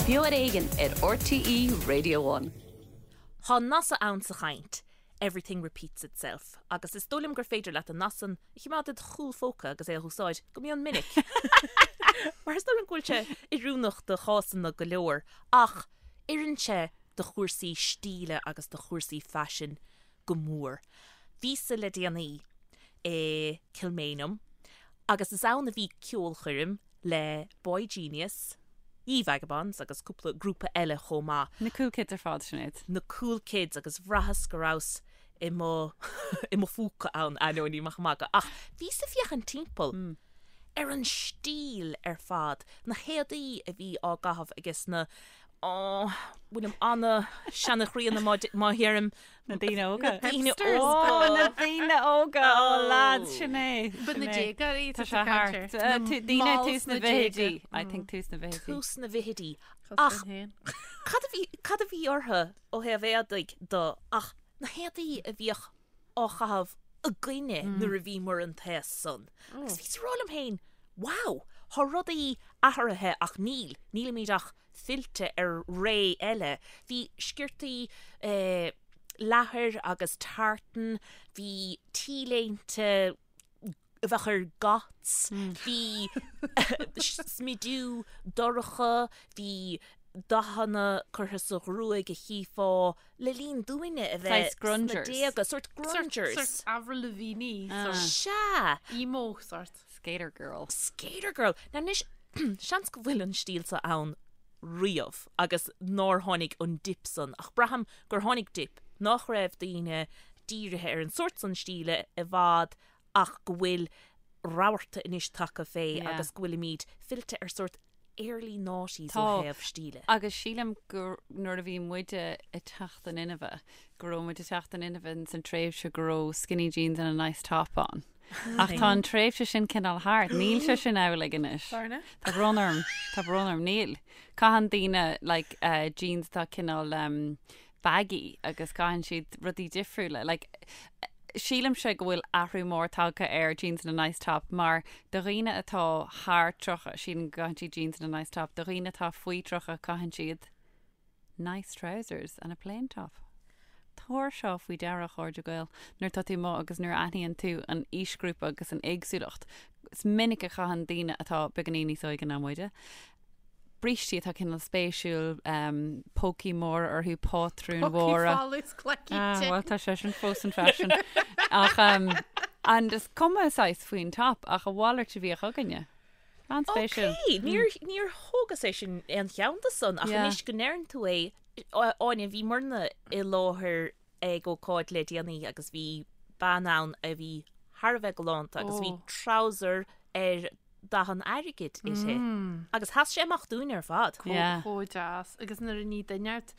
Beo ar Éigean ar RTÉ Radio One. Tá nath ann sa chaint, everything repeats itself, agus is dóigh liom gur féidir leat an nath san a choimeád id chúl phóca agus é a úsáid go mion minic. Mar is dóigh liom go bhfuil sé oiriúnach do chásanna go leor, ach oireann sé do chúrsaí stíle agus do chúrsaí faisin go mór. Bhíos-sa le déanaí i Kilmainham agus is ann a bhí ceolchoirm le boygenius, Ye Vagabonds agus cúpla grúpa eile chomh maith. Na cool kids ar fad, Sinéad. Na cool kids agus bhraitheas go rabhas i mo i mo phúca ann, ainneoin ní maith magadh. Ach bhíos ag féachaint timpeall ar an stíl ar fad, na héadaí a bhí á gcaitheamh ages na Ó, bhfuilim ana-seanchríonna má dheirim. Na daoine óga. Na daoine óga. Na daoine óga, ó lads, sin é. Ba na déagóirí Tá sé thart. Daoine tús na bhfichidí. I think tús na bhfichidí. Tús na bhfichidí. Ach cad a bhí, cad a bhí orthu ó thaobh éadaigh de ach na héadaí a bhíodh á chaitheamh againne nuair a bhíomar an t-aos san. Agus bhíos ag rá liom féin, wow, tá rudaí athraithe ach níl, nílimid ach fillte ar ré eile. Bhí sciortaí leathair agus tartan, bhí T-léinte a bheadh ar goths, bhí smidiú dorcha, bhí dathanna curtha sa ghruaig a chífeá le linn dúinne a bheith sna déaga, sórt grungers. Sórt Avril Lavigne. Sea! Emo sórt. Skater girl. Skater girl! Now anois, seans go bhfuil an stíl seo ann riamh agus nár tháinig an dip san, ach braithim gur tháinig dip, nach raibh daoine dírithe ar an sórt san stíle i bhfad ach go bhfuil rabharta anois tagtha fé agus go bhfuilimid fillte ar sórt early noughties ó thaobh stíle. Agus sílim gur nuair a bhí muide ag teacht in inmhe, go raibh muid ag teacht in inmhe ins an tréimhse go raibh skinny jeans and a nice top ann. Ach tá an tréimhse sin cineál thart, níl sé sin amhlaidh anois. Tá brón orm, tá brón orm, níl. Caitheann daoine like jeans atá cineál baggy agus caitheann siad rudaí difriúla. Like, sílimse go bhfuil athrú mór tagtha ar jeans and a nice top mar do dhaoine atá thar 30, sílim go gcaitheann siad jeans and a nice top, do dhaoine atá faoi 30 caitheann siad nice trousers and a plain top. Tabhair seo faoi deara, a chairde Gael, nuair atá tú amuigh agus nuair a aithníonn tú an aoisghrúpa agus an éagsúlacht. Is minic a chaitheann daoine atá beagáinín níos óige ná muide, brístí atá cineál spéisiúil, pócaí móra orthu, pátrúin mhóra. Pócaí folmha is cleacaí te. Bhuel, tá sé sin fós in fashion. Ach, and is cuma saghas faoin top, ach a mhalairt a bhíodh againne. An-spéisiúil. Ok, níor, níor thógas é sin aon cheann de san, ach anois go ndeireann tú é, Áine, bhíomarna i láthair ag ócáid le déanaí agus bhí bean ann a bhí thar a bheith galánta agus bhí trouser ar dath an airgid uirthi agus sheas sé amach dúinn ar fad. Chomh deas. Agus nuair a ní duine ort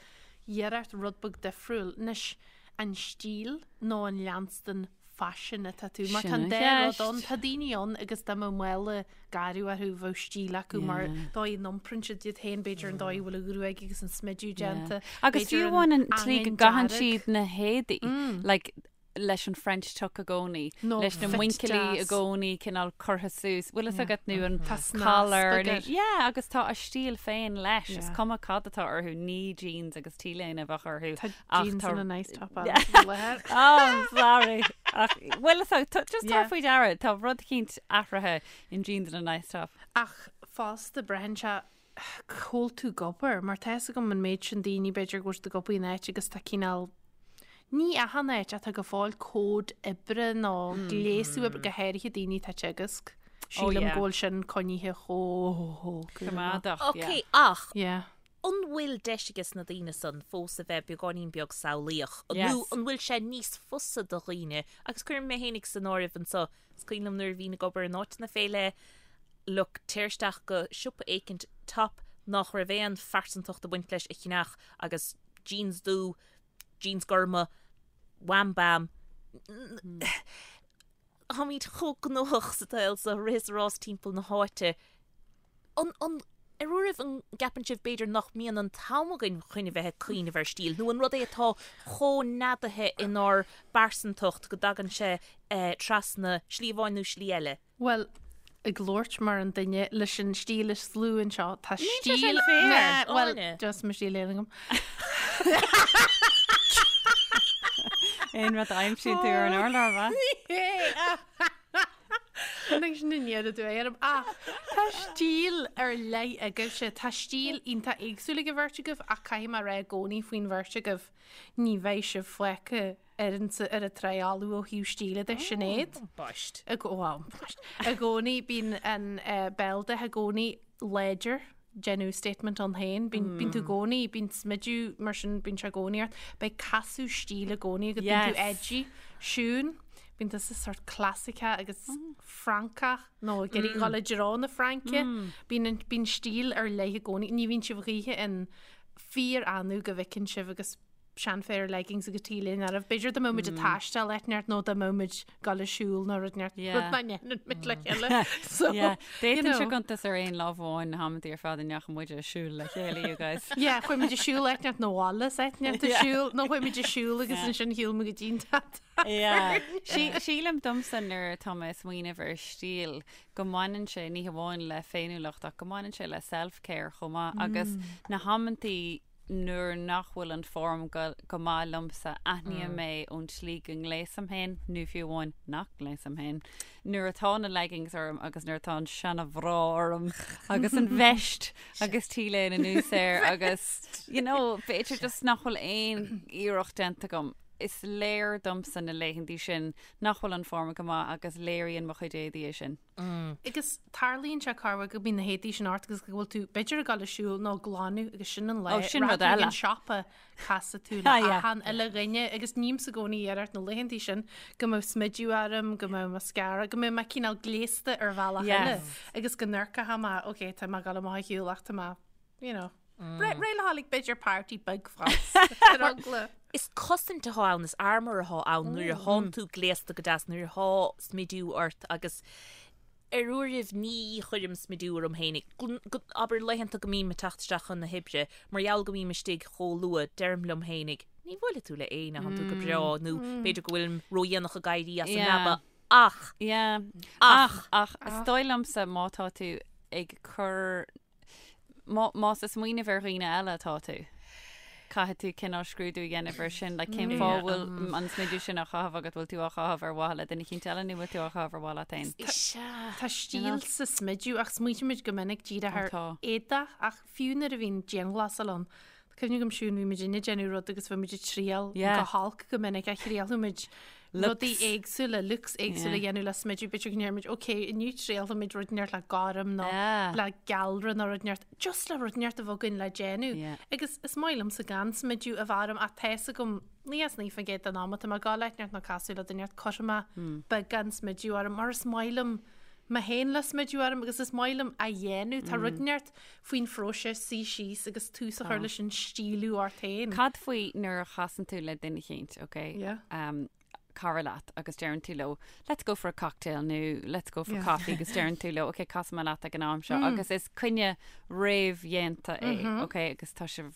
iarracht rud beag difriúil, anois an stíl nó an leanstan faisin atá tú, mar tá an dá rud ann, tá daoine ann agus dá mbeadh mála garbh orthu bheadh stíl acu mar dóigh a n-iomprann siad iad féin, b'fhéidir an dóigh a bhfuil an ghruaig agus an smidiú déanta, Agus fiú amháin an tslí go gcaitheann siad na héadaí, like leis an French tuck i gcónaí, leis na muinchillí i gcónaí cineál curtha suas, bhfuil fhios agat nó an collar, yeah, agus tá a stíl féin leis, is cuma cad atá orthu, ní jeans agus t-léine a bheadh orthu. Tá jeans and a nice top on faoi láthair. Oh, I'm sorry. Ach bhfuil fhios agat, just tabhair faoi deara, tá rud eicínt athraithe in jeans and a nice top. Ach fosta braitheann sé cá bhfuil tú ag obair, mar tá fhios agam an méid sin daoine b'fhéidir go bhfuil siad ag obair in áit agus tá cineál, ní achan áit ach tá go fóill cód oibre nó gléasadh oibre, go háirithe daoine atá ag teagasc. Sílim go bhfuil sin coinnithe chomh coimeádach. Ok, ach an bhfuil deis ages na daoine san fós a bheith beagáinín beag samhlaíoch? Nó an bhfuil sé níos fusa do dhaoine, agus cuirim mé fhéinig san áireamh anseo, Is cuimhin liom nuair a bhínn ag obair in áiteanna fé leith, look, téir isteach go siopa éicint top nach raibh aon phearsantacht ag baint leis a cheannach agus jeans dubh, jeans gorma, wham bam. Táimid chomh gnóthach sa tsaol so, rith is rás timpeall na háite. An, an, ar uairibh an gceapann sibh b'fhéidir nach mbíonn an t-am againn chun a bheith ag cuimhneamh ar stíl, nó an rud é atá chomh neadaithe inár bpearsantacht go dtagann sé trasna slí amháin nó slí eile? Bhuel, ag labhairt mar an duine leis an stíl is lú anseo. Tá Níl sé stíl sin fair. Nah, Well, Áine. just mo stíl féin agam. Aon rud a aimsíonn tú ar an urlár, bha? Tháinig sin aniar aduaidh orm. Ach tá stíl ar leith agaibhse. Tá stíl iontach éagsúil ag an bheirt agaibh ach caithfidh mé a rá i gcónaí faoin bheirt agaibh, ní bheidh sibh fágtha ar an ar an trá fholamh ó thaobh stíle de, Sinéad. Boist. I gcó- well, boist. I gcónaí bíonn an eh, béaldath i gcónaí láidir, déanamh statement ann féin. Bíonn bíonn tú i gcónaí, bíonn smidiú mar sin, bíonn sé i gcónaí ort. Beidh casadh stíle i gcónaí agat, bíonn tú Yes. edgy. Siún, bíonn tusa sort clasaiceach agus Francach nó ag iarraidh dhul i dtreo na Fraince. Bíonn an- bíonn stíl ar leith i gcónaí. Ní bhíonn sibh choíche in fíor-annamh go bhfeiceann sibh agus seanphéire leggings agus T-léine oraibh. B'fhéidir dá mbeadh muid ag taisteal áit inteacht nó dá mbeadh muid ag dul ag siúl nó rud inteacht. Yeah. Rud nach ndéanann muid le chéile. So, Yeah. you D'fhéadfainnse know. cuntas ar aon lámh amháin na hamantaí ar fad a ndeachaigh muid ag siúl le chéile, you guys. Yeah, chuaigh muid ag siúl áit inteacht nó abhaile is áit inteacht ag Yeah. siúl nó chuaigh muid ag siúl agus Yeah. ansin shiúil muid go dtí an teach. Yeah. Sí- Sílim domsa nuair atá mé ag smaoineamh ar stíl go mbaineann sé ní hamháin le féiniúlacht ach go mbaineann sé le self-care chomh maith agus na hamantaí nuair nach bhfuil an form go go maith liomsa, aithním é ón tslí go ngléasaim féin, nó fiú amháin nach ngléasaim féin, nuair atá na leggings orm agus nuair atá an seana-bhra orm agus an veist agus T-léine anuas air agus, you know, b'fhéidir just nach bhfuil aon iarracht déanta agam. Is léir domsa na laethantaí sin nach bhfuil an form go maith agus léiríonn mo chuid éadaí é sin. Agus tarlaíonn sé corruair go mbíonn na héadaí sin ort agus go bhfuil tú b'fhéidir ag dul ag siúl nó ag glanadh agus sin an lá Ó, sin rud rachaidh tú ag eile. an siopa casfaidh tú le Ah, yeah. achan uile dhuine agus nímsa i gcónaí iarracht na laethantaí sin go mbeadh smidiú orm, go mbeadh mascara, go mbeadh mé cineál gléasta ar bhealach eile Yes. agus go n-amharcfadh mé, ok, tá mé ag dul amach ag siúl ach tá mé, you know, réidh le dhul ag b'fhéidir party beag fós ar eagla. Is cosaint atá ann, is armour atá ann nuair a thánn tú gléasta go deas, nuair atá smidiú ort agus ar uairibh ní chuirim smidiú orm féinig. Abair laethanta go mbím ag teacht isteach chun na hoibre, mar gheall go mbím istigh chomh luath, deirim liom féinig, ní bhuailfidh tú le éinne, thánn tú go breá, nó b'fhéidir go bhfuilim ródhéanach ag éirí as an leaba, ach, Yeah. ach, Ach, ach, is dóigh liomsa má tá tú ag cur Más ag smaoineamh ar dhaoine eile atá tú, caithfidh tú cineál scrúdú a dhéanamh air sin, like cén fáth a bhfuil an smidiú sin á chaitheamh agat, bhfuil tú á chaitheamh ar mhaithe le duine eicínt eile nó bhfuil tú á chaitheamh ar mhaithe leat féin? Sea. Tá stíl sa smidiú ach smaoitímid go minic díreach ar Tá. éadach ach fiú nuair a bhíonn dianghlasáil ann, tá cuimhne agam Siún bhí muid ag déanamh rud agus bhí muid ag triail Yeah. go holc go minic a thriailfidh muid Looks. rudaí éagsúla, looks éagsúla Yeah. a dhéanamh le smidiú, b'fhéidir go ndéarfaimid, ok, inniu triailfimid rud inteacht le gorm nó Yeah. le gealra nó rud inteacht, just le rud inteacht a bheith againn le déanamh. Yeah. Agus is maith liomsa gan smidiú a bheith orm ach tá fhios agam 99% den am atá mé ag dul áit inteacht nó casadh le duine inteacht cuirfidh mé Hmm. beagán smidiú orm mar is maith liom mé féin le smidiú orm agus is maith liom a dhéanamh. Tá Hmm. rud inteacht faoin phróiseas suí síos agus tús a chur leis an stíliú ort féin. Cad faoi nuair a chasann tú le duine eicínt, ok? Yeah. Um, cara leat agus deireann tú leo let's go for a cocktail nó let's go for Yeah. coffee agus deireann tú leo ok casfaidh mé leat ag an am seo agus is coinne réamhdhéanta é ok agus tá sibh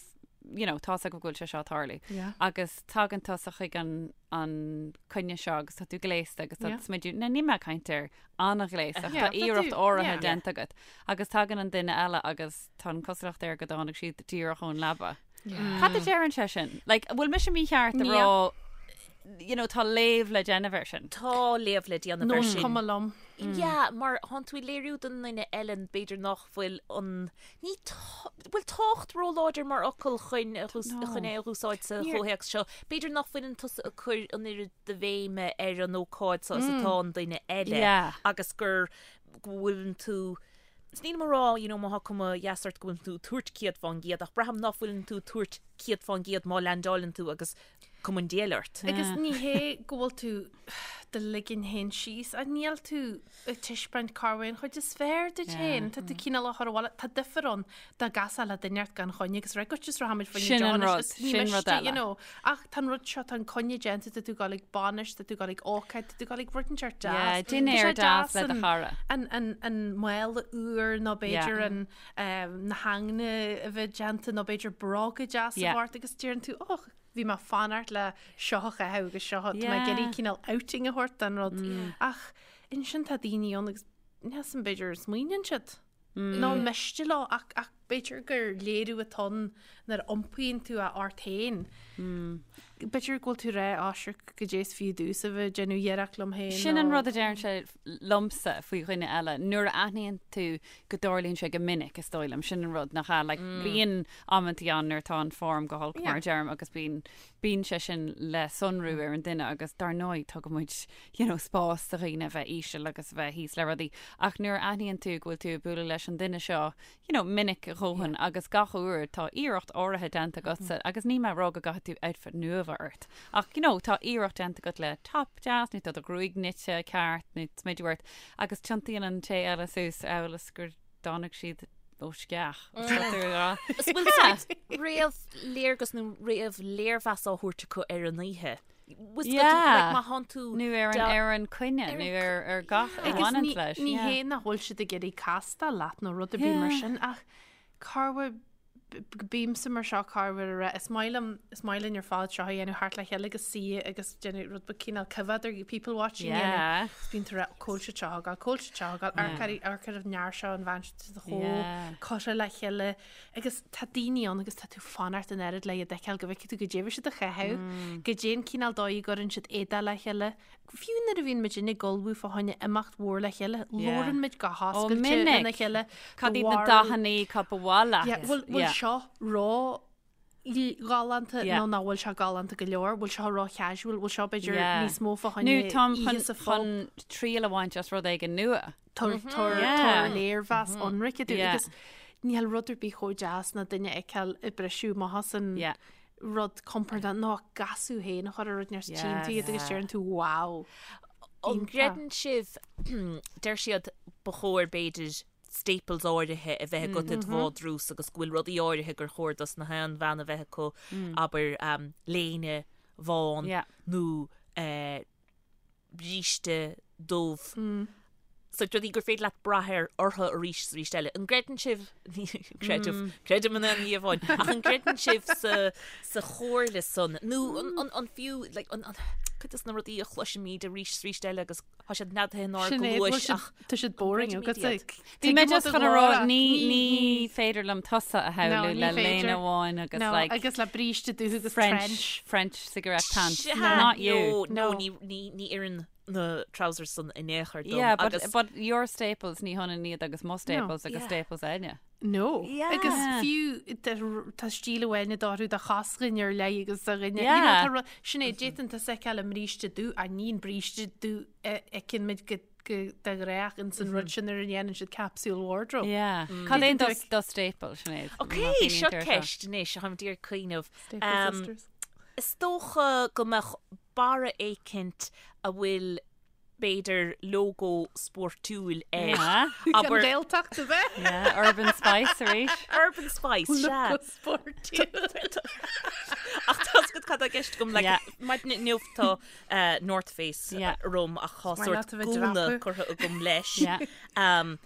you know, tá's agaibh go bhfuil sé seo ag tarlú. Yeah. Agus tagann tusa chuig an, an coinne seo agus tá tú gléasta agus tá Yeah. smidiú, now níl mé ag caint ar an-ghléasta ach Yeah, tá tá iarracht tú- áirithe yeah. déanta agat. Agus tagann an duine eile agus tá an cosúlacht air go dtáinig siad díreach ón leaba. Cad a deireann sé sin? Like, an bhfuil mise mícheart a Níl. rá, you know, tá léamh le déanamh air sin? Tá léamh le déanamh Nó air is sin. cuma liom. Yeah, mar thánn tú ag léiriú don duine eile b'fhéidir nach bhfuil an, ní tá, bhfuil tábhacht róláidir mar fhocal chun a dhús- No. chun é a dhúsáid sa Níor- chomhthéacs seo. B'fhéidir nach bhfuileann tusa ag cur an oiread de bhéime ar an ócáid seo is atá an duine eile Yeah. agus gur go bhfuileann tú Is nílim ag rá, you know, má thá cuma dheas ort go bhfuileann tú ag tabhairt 100% ach braithim nach bhfuileann tú ag tabhairt 100% má leaindeáileann tú agus cuma an diabhail ort. Agus ní hé go bhfuil tú do ligean féin síos, ach níl tú ag taispeáint cá bhfuil an chuid is fearr duit féin. Tá tú cineál á chur abhaile. Tá difear ann dá gcasfá le duine ort gan choinne agus rá, goitse is rachaimid faoin Sin an deonais rud, is ní sin rud miste, eile. you know. Ach tá an rud seo, tá an coinne déanta, tá tú ag dul ag bainis, tá tú ag dul ag ócáid, tá tú ag dul ag rud inteacht deas. Yeah, Tá sé dinnéar deas le do an- chara. An, an, an mála úr nó b'fhéidir Yeah. an, um, na haigne a bheith déanta nó b'fhéidir bróga deas Yeah. a bheith ort agus deireann tú, och, bhí mé fanacht le seo a chaitheamh agus seo, tá mé ag Yeah. iarraidh cineál outing a thabhairt don rud. Ach ansin tá daoine ann agus. Níl 'fhios a'm b'fhéidir smaoiníonn siad. Nó an miste leo ach ach b'fhéidir gur léiriú atá ann nuair a iompaíonn tú é ort féin. B'fhéidir go bhfuil tú ag rá á sure goidé is fiú domhsa a bheith ag déanamh iarracht liom féin Sin an rud a deireann sé liomsa faoi dhuine eile. Nuair a aithníonn tú go dtarlaíonn sé go minic, is dóigh liom, sin an rud nach ea. Like, bíonn amantaí ann nuair atá an form go holc mar a deirim agus bíonn bíonn sé sin le sonrú ar an duine agus dar ndóigh tugann muid you know, spás do dhaoine a bheith íseal agus a bheith thíos le rudaí ach nuair a aithníonn tú go bhfuil tú ag bualadh leis an duine seo you know, minic a dhóthain agus gach uair tá iarracht áirithe déanta agatsa agus níl mé ag rá go gcaithfidh tú outfit nua a bheith ort ach you know, tá iarracht déanta agat le top deas nó tá do ghruaig nite ceart nó smideadh ort agus tiontaíonn an té eile suas amhail is gur dtáinig siad ó sceach. Is bhfuil sort réamh-léargas nó réamh-léirmheas á thabhairt acu ar an oíche. Yeah. Má thánn tú Nó ar an ar an coinne nó ar ar gach a bhaineann leis. Ní hé nach bhfuil siad ag iarraidh castáil leat nó rud ar bith mar sin ach corruair bímse mar seo corruair a rá is maith liom is maith linn ar fad seo a dhéanamh thart le chéile agus suí agus déanamh rud beag cineál coimhead ar people watching yeah. dhéanamh. Is bíonn tú ag rá cá bhfuil siad seo ag gabháil, cá bhfuil siad seo ag gabháil, amharc ar amharc ar an fhear seo an bhean seo chomh curtha le chéile Agus tá daoine ann agus tá tú fanacht an oiread le iad a fheiceáil go bhfeicfidh tú goidé a bhí siad a chaitheamh, goidé an cineál dóigh a gcuireann siad éadaí le chéile. Fiú nuair a bhíonn muid ag ullmhú fá choinne imeacht mhór le chéile, labhrann muid go hoscailte lena chéile. Cad iad na dathannaí cad ba mhaith leat? Yeah, bhfuil bhfuil seo ró ghalánta nó nach bhfuil seo galánta go leor, bhfuil seo ró casual, bhfuil seo b'fhéidir níos mó fá choinne Nó táim chun oíche sa phub. chun triail a bhaint as rud éigin nua. Tabhair léirmheas ionraic dúinn agus níl rud ar bith chomh deas ná duine a fheiceáil ag briseadh amach as an rud compordach nó ag casadh féin a chur ar rud níos tchíonn tú iad agus deireann tú wow. An gcreideann sibh, deir siad ba chóir b'fhéidir staples áirithe a bheith agat i do bhádrús agus go bhfuil rudaí áirithe gur chóir dos na haon bhean a bheith acu, abair léine bhán nó bríste dubh. Sórt rudaí gur féidir leat brath ar orthu arís is arís eile. An gcreideann sibh, creidim, creidim in aon ní amháin, ach an gcreideann sibh sa, sa chomhairle san nó an, an, an fiú, like, an, an, cuid de na rudaí a chloisimid arís is arís eile agus tá siad neadaithe inár Sin é, bhfuil gcluais siad- ach tá siad boring An agat. gcreidimid iad? Bhí mé just chun a rá, ní, ní féidir liom tusa a shamhlú No, ní le léine féidir. amháin agus No, like agus le bríste dubh agus French, trench. French cigarette pants. Sea, Not you. No, no, No. ní, ní, ní oireann na trousers san in aon chor dom. Yeah, but, agus but your staples ní hionann iad agus mo staples agus Yeah. staples Áine. No. Yeah. Agus fiú tá tá stíl amháin orthu do chosghain ar leith agus do dhuine. You know, Yeah. tá ru- Sin é, d'fhéadfainn tusa a fheiceáil i mbríste dubh, ach ní an bríste dubh a fheiceann muid go go de ghnách ins an rud sin nuair a dhéanann siad capsule wardrobe. Yeah. Cad é do do staple, Sinéad? Ok, seo ceist anois, táim d'iarraidh cuimhneamh. Staple Um, sisters. Is dócha go mbeadh barra éicint a bhfuil b'fhéidir lógó spórtúil air. Yeah. An Abair Ghaeltacht a bheith. Yeah, Urban Spice arís. Urban Spice, sea. Logo spórtúil. Ach tá 's agat cad tá i gceist agam, like, Yeah. maidin inniu tá eh, North Face Yeah. orm ach tá Is maith sórt leat a bheith gúna dreapadh. curtha agam leis. Yeah. Um,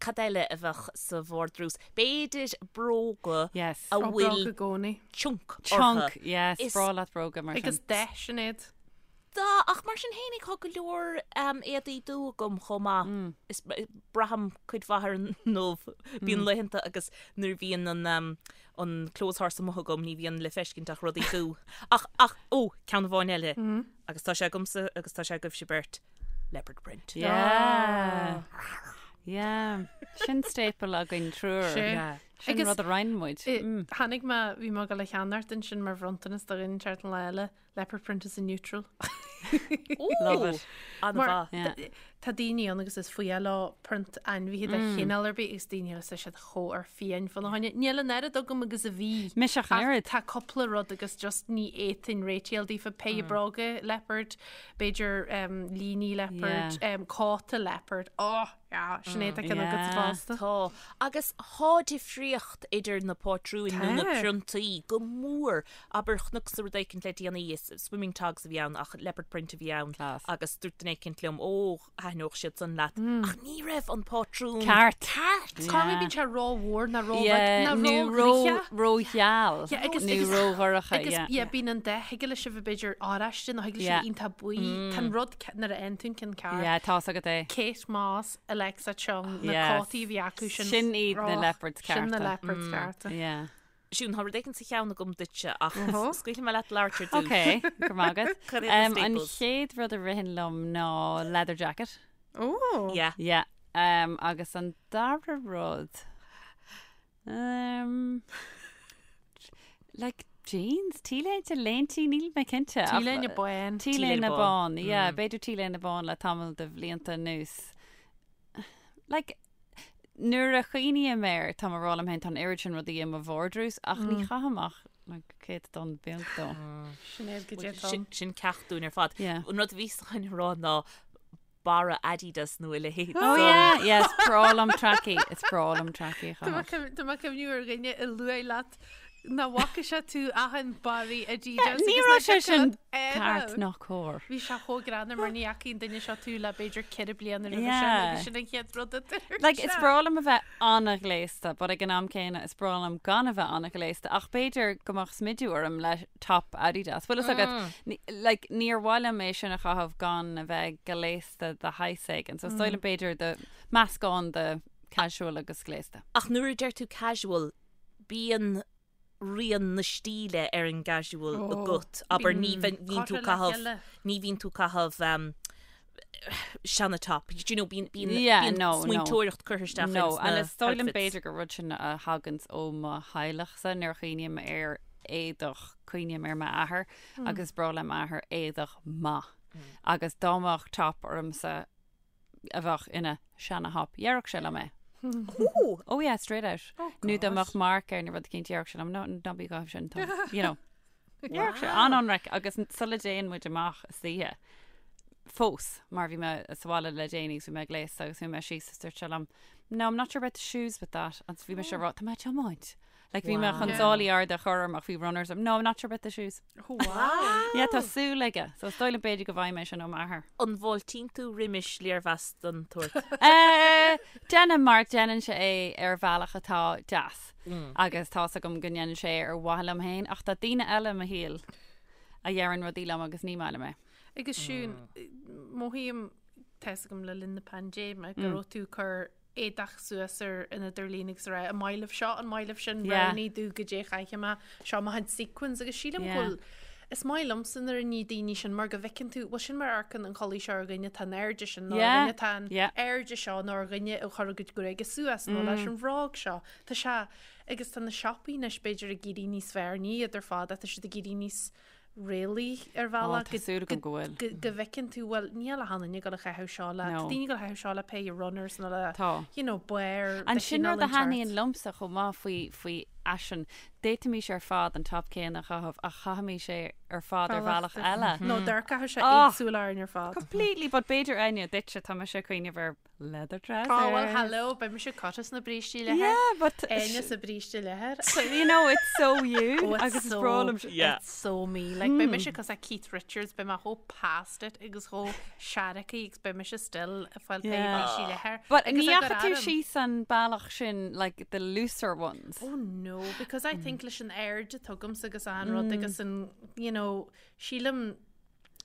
cad eile a bheadh sa vardrús? B'fhéidir bróga Yes. a Ó, bhfuil bróga i gcónaí. chunk Chunk, orthu. yes, Is- breá leat bróga mar sin. Agus dath, Sinéad. Tá, ach mar sin fhéinig tá go leor um, éadaí dubha agam chomh maith. Mm. Is braithim cuid mhaith ar an ndubh. Bíonn laethanta agus nuair a bhíonn an, um, an clothes horse amuigh agam ní bhíonn le feiscint ach rudaí dubha. Ach, ach, ó, ceann amháin eile. Agus tá sé agamsa agus tá sé agaibhse beirt. Leopard print. Yeah. Yeah. Sin staple againn triúr. Sin. Yeah. Sin Agus- rud a roinn muid. I- Tháinig mé, bhí mé ag dul a cheannacht ansin mar bhronntanas do dhuine inteacht an lá eile, leopard print is a neutral. Love it. An-mhaith. Yeah. Tá daoine ann agus is fuath leo print ainmhithe de chineál ar bith agus daoine eile tá siad chomh ar fiáin fána choinne. Níl an oiread agam agus a bhí. Mise ach an Ach oiread. Tá cúpla rud agus just ní fhéadfainn réitíl daofa péire bróga leopard, b'fhéidir líní leopard, cóta leopard. Oh, yeah, sin é tá ceann agat Yeah. fosta. Tá. Agus tá difríocht idir na pátrúin nó na Tá. priontaí go mór. Abair chonacsa rud éicint le déanaí, is swimming togs a bhí ann ach leopard print a bhí ann Class. agus dúirt duine éicint liom, ó, thaitneodh siad san leat. Ach ní raibh an pátrún Ceart. ceart. Corruair bíonn sé ró-mhór ná ró-bheag Yeah, ná nó ró-ghlice. ró-gheal Yeah, agus- nó agus- ró-dhorcha, Agus yeah. yeah, bíonn an dath, thig leis a bheith b'fhéidir oráiste nó thig leis a Yeah. bheith iontach buí. Tá an rud ce- nuair a fhaigheann tú an ceann ceart. Yeah, tá's agat é. Kate Moss i. Alexa Chung, na Yes. cótaí a bhí acu sin. Sin iad na Och, leopards Sin na cearta. leopards cearta. Yeah. Siún, tá rud éigin sa cheann agam duitse ach scaoilfidh mé leat labhairt ar dtús. Ok, go raibh maith agat. Cad iad na Um, an staples? chéad rud a ritheann liom ná leather jacket. Ó! Yeah. Yeah. Um, agus an dara rud um, like jeans, T-léinte, léintí, níl mé cinnte. ach- T-léine bán. T-léine T-léine bán, yeah, b'fhéidir T-léine bán le tamall de bhlianta anuas. Like, nuair a chuimhním air, tá mé ag rá liom féin, tá an oiread sin rudaí i mo vardrús, ach ní chaithim ach like, céatadán beag dó. Sinéad go dté Sin, sin ceacht dúinn ar fad. Yeah. An rud a bhí chun a rá ná barra Adidas nó a leithéid. Oh yeah, yeah, is breá liom trackie, is breá liom trackie a chaitheamh. Tá mé ag cuimhniú ar dhuine a luaigh leat nach bhfaca sé tú achan barraí Adidas. Ní agus raibh nach sé sin dtiocfadh leat ceart air. ná cóir. Bhí sé chomh greannmhar mar ní fhaca an duine seo tú le b'fhéidir 4 bliana roimhe sin Yeah. agus sin an chéad rud a dúirt Like, is sé. breá liom a bheith an-ghléasta, but ag an am céanna is breá liom gan a bheith an-ghléasta, ach b'fhéidir go mbeadh smidiú orm le top Adidas. Bhfuil fhios agat, ní- like, níor mhaith liom é sin a chaitheamh gan a bheith gléasta de shaghas éigin. So is dóigh liom b'fhéidir de meascán de casual agus gléasta. Ach nuair a deir tú casual, bíonn rian na stíle ar an gcasual Ó, agat. Abair ní bhíonn bhíonn tú curtha le caitheamh chéile. ní bhíonn tú caitheamh um, seana top. Do you know, bíonn bíonn Yeah, bíonn no, no. smaointeoireacht curtha isteach No, ins and na is dóigh liom outfits. b'fhéidir gur rud sin a thaganns ó mo theaghlachsa nuair a chuimhním ar éadach cuimhním ar m'athair agus is breá le m'athair éadach maith. Agus dá mbeadh top ormsa a bheadh ina seana thop, dhéarfadh sé liom é. Ooh. Oh yeah, straight out. Nó dá mbeadh marc air nó rud eicínt dhéarfadh sé liom, no, ná bí ag caitheamh sin, Tom. You know. Dhéarfadh sé an-ionraic agus sula dtéann muid amach istoíche fós mar bhí mé sa bhaile le déanaí agus bhí mé gléasta agus bhí mé síos is dúirt sé liom, no, I'm not sure about the shoes with that. Agus bhí mise ag rá, tá mé ag tiomáint. Like bhí mé chun sálaí arda a chur orm ach bhí runners orm. No, I'm not sure about the shoes. Oh, wow. Yeah, tá súil aige. So is dóigh liom b'fhéidir go bhfaighidh mé sin ó m'athair. An bhfáiltíonn tú roimis léirmheas den tsórt? Eh, Déanaim mar déanann sé é ar bhealach atá deas. Agus tá's agam go ndéanann sé é ar mhaithe liom féin, ach tá daoine eile i mo shaol a dheireann rudaí liom agus ní maith liom é. Agus Siún, mothaím tá's agam le linn na paindéime go raibh tú ag cur éadach suas ar an idirlíon agus a rá, an maith libh seo, an maith libh sin, Yeah. roghnaigh domh goidé a chaithfidh mé, seo mo chuid sequins agus sílim Yeah. go bhfuil is maith liomsa nuair a ní daoine sin mar go bhfeiceann tú, bhuel sin mar a amharcann an chulaith seo ar dhuine atá in airde sin nó ar Yeah. dhuine atá in Yeah. airde seo nó ar dhuine a chuir a gcuid gruaige suas nó leis an bhróg seo. Tá sé agus tá na siopaí anois b'fhéidir ag éirí níos fearr, ní iad ar fad ach tá siad ag éirí níos réalaí ar bhealach tá súil agam go bhfuil. go go bhfeiceann tú bhuel níl achan duine ag gabháil a chaitheamh seo le No. tá daoine ag gabháil a chaitheamh seo le péire runners nó le Tá. you know barr An de sin chineál rud a inteacht. thaitníonn liomsa chomh maith faoi faoi fhaisean. D'fhéadfaimis ar fad an top céanna a chaitheamh ach chaithfimis é ar fad ar bhealach eile. Nó d'amharcfadh sé Oh. éagsúil orainn ar fad. Completely, but b'fhéidir Áine duitse tá mise ag cuimhneamh ar leather trousers. Oh well hello, beidh mise curtha sna brístí leathair. Yeah, but Áine sa bríste leathair. you know, it's so you. Oh, it's agus is so, breá liom sin. Yeah. It's so me. Like, beidh mise cosúil le Keith Richards, beidh mé chomh past it agus chomh seargtha agus beidh mise still ag fáil péire Yeah. brístí leathair. But Agus ní ag fhaca tú arm. síos an bealach sin, like the looser ones. Oh no, because I think leis an airde atá agamsa agus an rud agus an, you know, sílim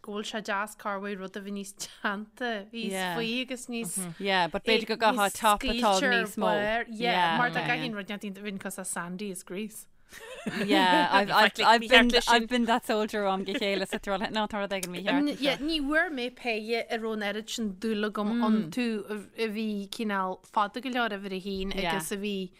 go bhfuil sé deas corruair rud a bheith níos teannta, níos Yeah. faoi agus níos Yeah, but b'fhéidir go gcaithfeá top atá níos mó. Yeah, mar okay. tá gach rud neart bhíonn cosúil le Sandy as Grease. Yeah, I've, I've, Like, I've, mícheart been, leis sin. I've been that soldier am go chéile sa troll. No, tá rud éigin mícheart. Yeah, ní bhfuair mé péire a raibh an oiread sin dúil agam iontu a bhí cineál fada go leor uimhir a haon Yeah. agus a bhí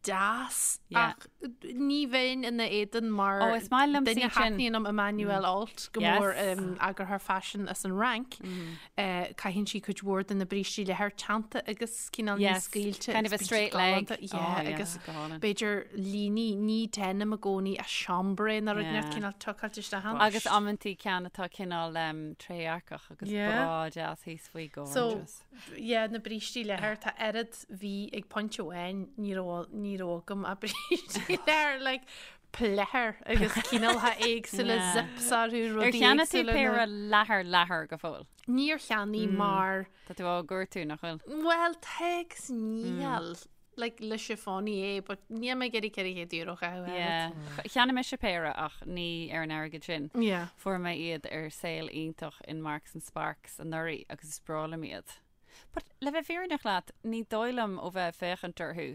deas Yeah. ach ní bheinn ina éadan mar Oh, is maith liom duine sin. thaitníonn liom Emmanuelle Alt go Yes. mór eagarthóir faisin as an Fhrainc. Eh, Caitheann sí cuid mhór de na brístí leathair teannta agus cineál níos Yes, scaoilte kind of agus a bíonn siad straight leg. galánta. Oh, Yeah, yeah, agus go hálainn. b'fhéidir líní ní denim i gcónaí a chambray nó rud Yeah. neart cineál tucáilte isteach ann. Agus amantaí ceann atá cineál um, trédhearcach agus Yeah. breá deas thíos faoi So, gorgeous. yeah, na brístí leathair tá oiread bhí ag pointe amháin ní raibh ní raibh agam ach brístí leathair like pleathair agus cineálcha éagsúla Yeah. zips orthu Ar rudaí cheannaigh tú éagsúla péire na- leathair leathair go fóill? Níor cheannaigh mar Tá tú á gcuartú nach bhfuil? Well, tá agus níl like le chiffonnier but níl mé ag iarraidh €400 a chaitheamh air. Yeah. Cheannaigh mise péire ach ní ar an airgead sin. Yeah. Fuair mé iad ar sale iontach in Marks and Sparks anuraidh agus is breá liom iad. But le bheith fírinneach leat, ní dóigh liom ó bheith ag féachaint orthu.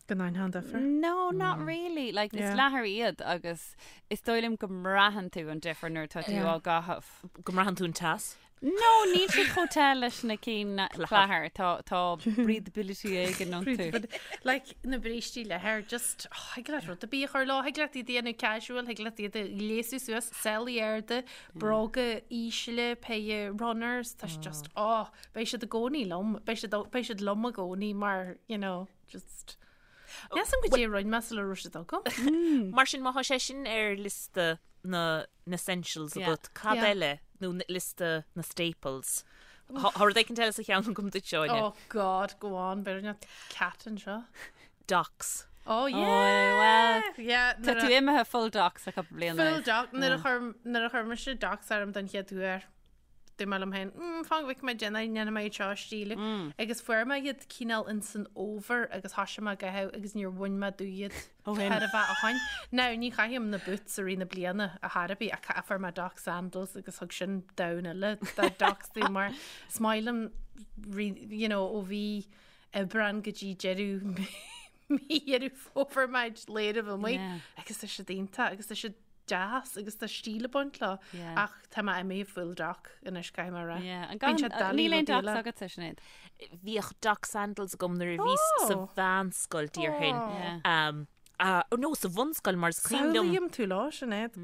Go ndéanfá an difear? No, not really. Like, is leathar iad agus is dóigh liom go mbraitheann tú an difear nuair atá tú á gcaitheamh. Go mbraitheann tú an teas? No, níl siad chomh te leis na cinn leathair. Tá tá breathability éigin iontu. Like, na brístí leathair, just, oh, thig leat rud ar bith a chur leo, thig leat iad a dhéanamh casual, thig leat iad a ghléasadh suas, sálaí arda, bróga ísle, péire runners, tá sé just, oh, beidh siad i gcónaí liom, beidh siad, beidh siad liom i gcónaí mar, you know, just Níl a fhios agam goidé a rinne mé sula raibh siad agam. Mar sin, má tá sé sin ar liosta na n-essentials agat, cad eile, nó liosta na staples? Tá rud éicint eile sa cheann agam duit, Áine. Oh God, go on, b'fhéidir nach cat anseo. Docs. Oh yeah! Well, yeah, tá tú imithe full docs le cúpla bliain. Full doc, nuair a chuir nuair a chuir mise docs orm don chéad uair. Dúirt mé liom féin, mm, fan go bhfeicfidh mé déanamh, ndéanfaidh mé iad seo a stíliú. Agus fuair mé iad cineál in san fhómhar agus thoisigh mé á gcaitheamh agus níor bhain mé díom iad Ó shin. chóir a bheith ó shin. Now, ní chaithim na boots i rith na bliana ar chor ar bith ach ca- fuair mé doc sandals agus thug sin domhan eile de docs domh mar is maith liom ri- you know, ó mhí Aibreán go dtí deireadh mí Dheireadh Fómhair muid léireamh amuigh Yeah. agus tá siad iontach agus tá siad deas agus tá stíl ag baint leo ach tá mé imithe full doc anois caithfidh mé a rá. Bíonn sé doiligh Níl aon docs agatsa, Sinéad? Bhíodh doc sandals agam nuair a bhíos sa mheánscoil déarfainn. No, sa bhunscoil mar is cuimhin liom. Samhlaím tú leo, Sinéad.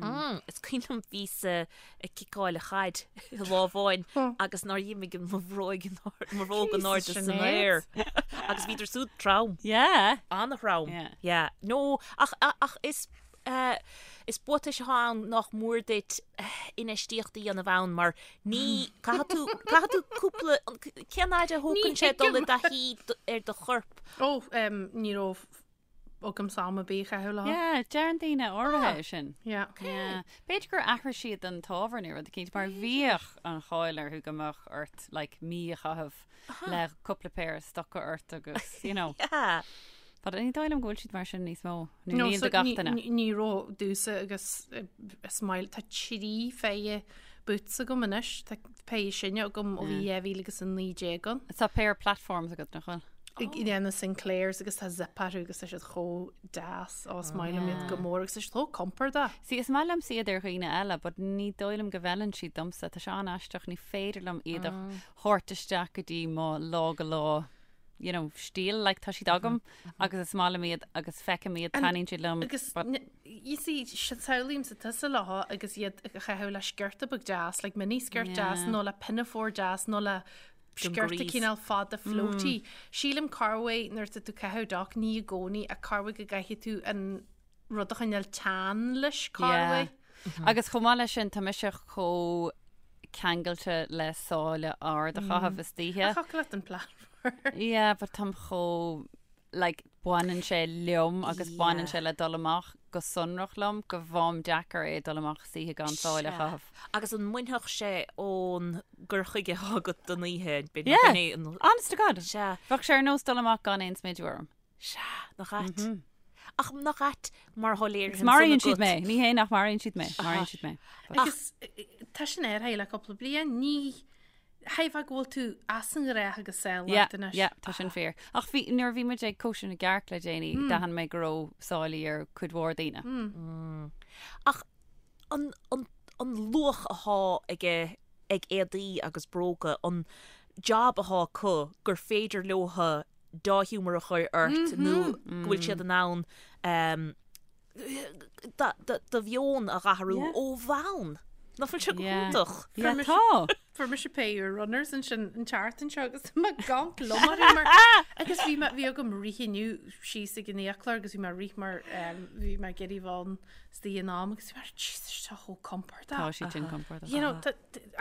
Is cuimhin liom bhíos ag ciceáil an chaid lá amháin agus nár dh'imigh mo bhróig mo bhróg in airde san aer agus bhíodar siúd trom. Yeah. An-throm. Yeah. No, ach ach is Is buatais atá ann nach mór duit infheistíocht a dhéanamh ann mar ní, caithfidh tú, caithfidh tú cúpla, cén fhaid a thógann sé dul i dtaithí ar do chorp? Ó, ní raibh agamsa am ar bith a chaitheamh leo. Yeah, deireann daoine áirithe é sin. Yeah. Yeah. B'fhéidir gur athraigh siad an t-ábhar nó rud eicínt mar bhíodh an cháil orthu go mbeadh ort like mí a chaitheamh le cúpla péire stoca ort agus, you know. Yeah. But ní dóigh liom go bhfuil siad mar sin níos mó. Nó níl do gach duine. Ní raibh domhsa agus is maith tá 3 phéire boots agam anois, tá péire sine agam ó bhí 2019 ann. Tá péire platforms agat nach bhfuil? Yeah, na Sinclairs agus tá zip orthu agus tá siad chomh deas ó is maith liom iad go mór agus tá siad chomh compordach. See, is maith liomsa iad ar dhaoine eile, but ní dóigh liom go bhfeileann siad domsa. Tá sé an-aisteach, ní féidir liom iad a thabhairt isteach go dtí mo lá go lá you know, stíl, like tá siad agam agus is maith liom iad agus feicim iad, taitníonn siad liom. Agus you see, samhlaímse tusa leo agus iad a chaitheamh le sciorta beag deas, like mini skirt deas nó le pinafore deas nó le sciorta cineál fada floaty. Sílim corruair nuair atá tú ag caitheamh doc, ní i gcónaí, ach corruair go gcaithfidh tú an rud a choinneáil teann leis, corruair. Agus chomh maith leis sin, tá mise chomh ceangailte le sáile ard a chaitheamh istoíche. Ach thiocfadh leat an platform. Yeah, but táim chomh, like, baineann sé liom agus baineann sé le dul amach go sonrach liom go bhfaighim deacair é dul amach istoíche gan sáile a chaitheamh. Agus an mbainfeadh sé ón gcur chuige atá agat don oíche? Yeah, honest to God. Sea. Bheadh sé ar nós dul amach gan aon smideadh orm. Sea, nach ait. Ach nach ait mar atá léirithe Agus maraíonn siad mé. Ní hé nach maraíonn siad mé. Maraíonn siad mé. Agus tá sin ar aghaidh le cúpla bliain. Ní shílfeá go bhfuil tú as an ngnách agus saol Yeah, leat anois. yeah, tá sin fíor. Ach bhí, nuair a bhí muid ag cóisir na gcearc le déanaí, d'aithin mé go raibh sáilí ar cuid mhór daoine. Ach an, an, an luach atá aige ag éadaí agus bróga, an job atá acu gur féidir leotha dea-ghiúmar a chur ort nó go bhfuil siad in ann do mheon a dh'athrú ó bhonn. Nach bhfuil sé go hiontach? Yeah, tá. Fuair mise péire runners ansin an tseachtain seo agus mé ag amharc liom orthu mar agus bhí mé bhí agam rith inniu síos ag an fhiaclóir agus bhí mé ag rith mar bhí mé ag iarraidh bheith ann istigh in am agus bhí mé Jesus tá chomh compordach. Tá siad sin compordach. You know,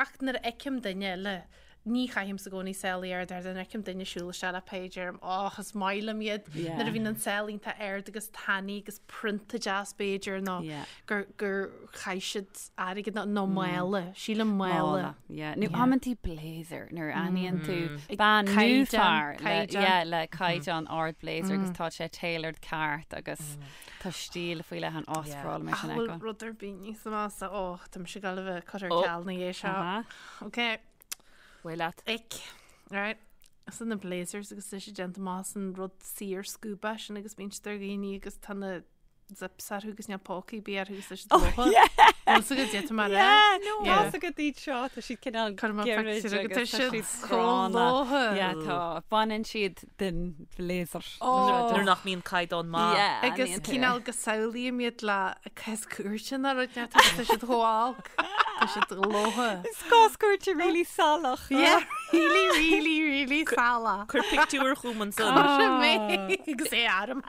ach nuair a fheicim duine eile Ní chaithimse i gcónaí sálaí arda nuair a fheicim duine ag siúl isteach le péire deirim och is maith liom iad Yeah. nuair a bhíonn an sáil iontach ard agus tanaí agus prionta deas b'fhéidir nó Yeah. gur gur chaith siad airgead nó nó mála, sílim mála. Mála, yeah. Nó amantaí blazer nuair a aithníonn tú bean nó Caighdeán, fear le, caighdeán. yeah, le caighdeán ard blazer agus tá sé tailored ceart agus tá stíl faoi leith ann oh is breá liom é Ach sin a bhfuil fheiceáil. rud ar bith níos measa ó tá mise ag gabháil a bheith curtha ar Oh. ceal ina dhiaidh seo. Aha. Ok. Bhuel leat. Ick. Right. San na blazers agus tá siad déanta amach as an rud saor scuaba sin agus bíonn siad ar dhaoine agus tá na zips orthu agus níl pócaí ar bith orthu agus tá siad lótha. Bhfuil fhios agat cad tá mé a rá? Tá fhios agat iad seo, tá siad cineál Cuir amach gairid pictiúr agat, agus tá tá siad siad chomh gránna. lótha. Yeah, tá. Baineann siad den bhlazer. Nuair nach mbíonn caighdeán maith. Yeah, Agus ní cineál go samhlaím iad le cás cúirte nó rud inteacht agus tá siad chomh olc. Tá siad lótha. Is cás cúirte really salach. Yeah, really, really, really salach. Cuir pictiúr chugam ansan. Cuirfidh mé agus é orm.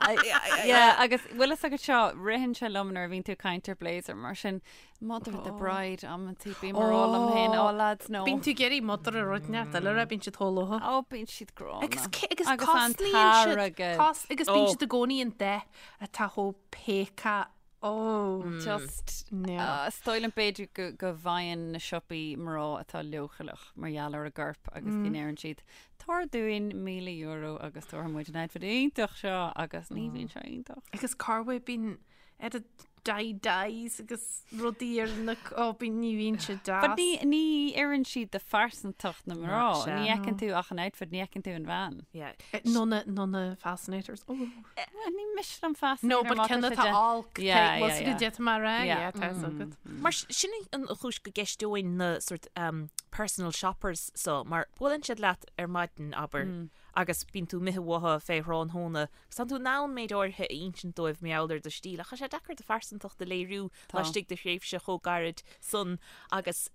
Yeah, agus bhfuil fhios agat seo, ritheann sé liom nuair a bhíonn tú ag caint ar blazer mar sin, mother of the bride, amantaí bím ag rá liom féin, oh lads, no. Bíonn tú ag iarraidh mother a rud inteacht eile a bíonn siad chomh lótha. Ó, bíonn siad gránna. Agus ce- agus Agus an cosnaíonn siad t-airgead. cos agus bíonn Ó. siad i gcónaí an dath atá chomh péacach Ó, Just, no. is dóigh liom b'fhéidir go, go bhfaigheann na siopaí mná atá leochaileach mar gheall ar a gcorp agus go ndeireann siad, tabhair dúinn €1,000 agus tabharfaidh muid an outfit iontach seo agus ní bhíonn sé iontach. Agus corruair bíonn ar dye dyes agus rudaí ar na, ó, bíonn, ní bhíonn sé deas. But ní, ní oireann siad do phearsantacht na mná. Sea. Ní fheiceann tú ach an outfit, ní fheiceann tú an bhean. Yeah. Nó na, nó na fascinators. Ó. Well, ní miste liom fascinator No, but má tá ceann sé atá de- olc. Yeah, Bhfuil yeah, fhios yeah. agat cad tá mé a rá? Yeah. Yeah, tá fhios agat. Mar sin an chúis go gceisteoinn na sort um, personal shoppers so, mar buaileann siad leat ar maidin, abair, agus bíonn tú imithe uathu fé thráthnóna, agus tánn tú in ann méid áirithe a insint dóibh mar gheall ar do stíl, ach tá sé deacair do phearsantacht a léiriú Tá. laistigh de thréimhse chomh gairid san agus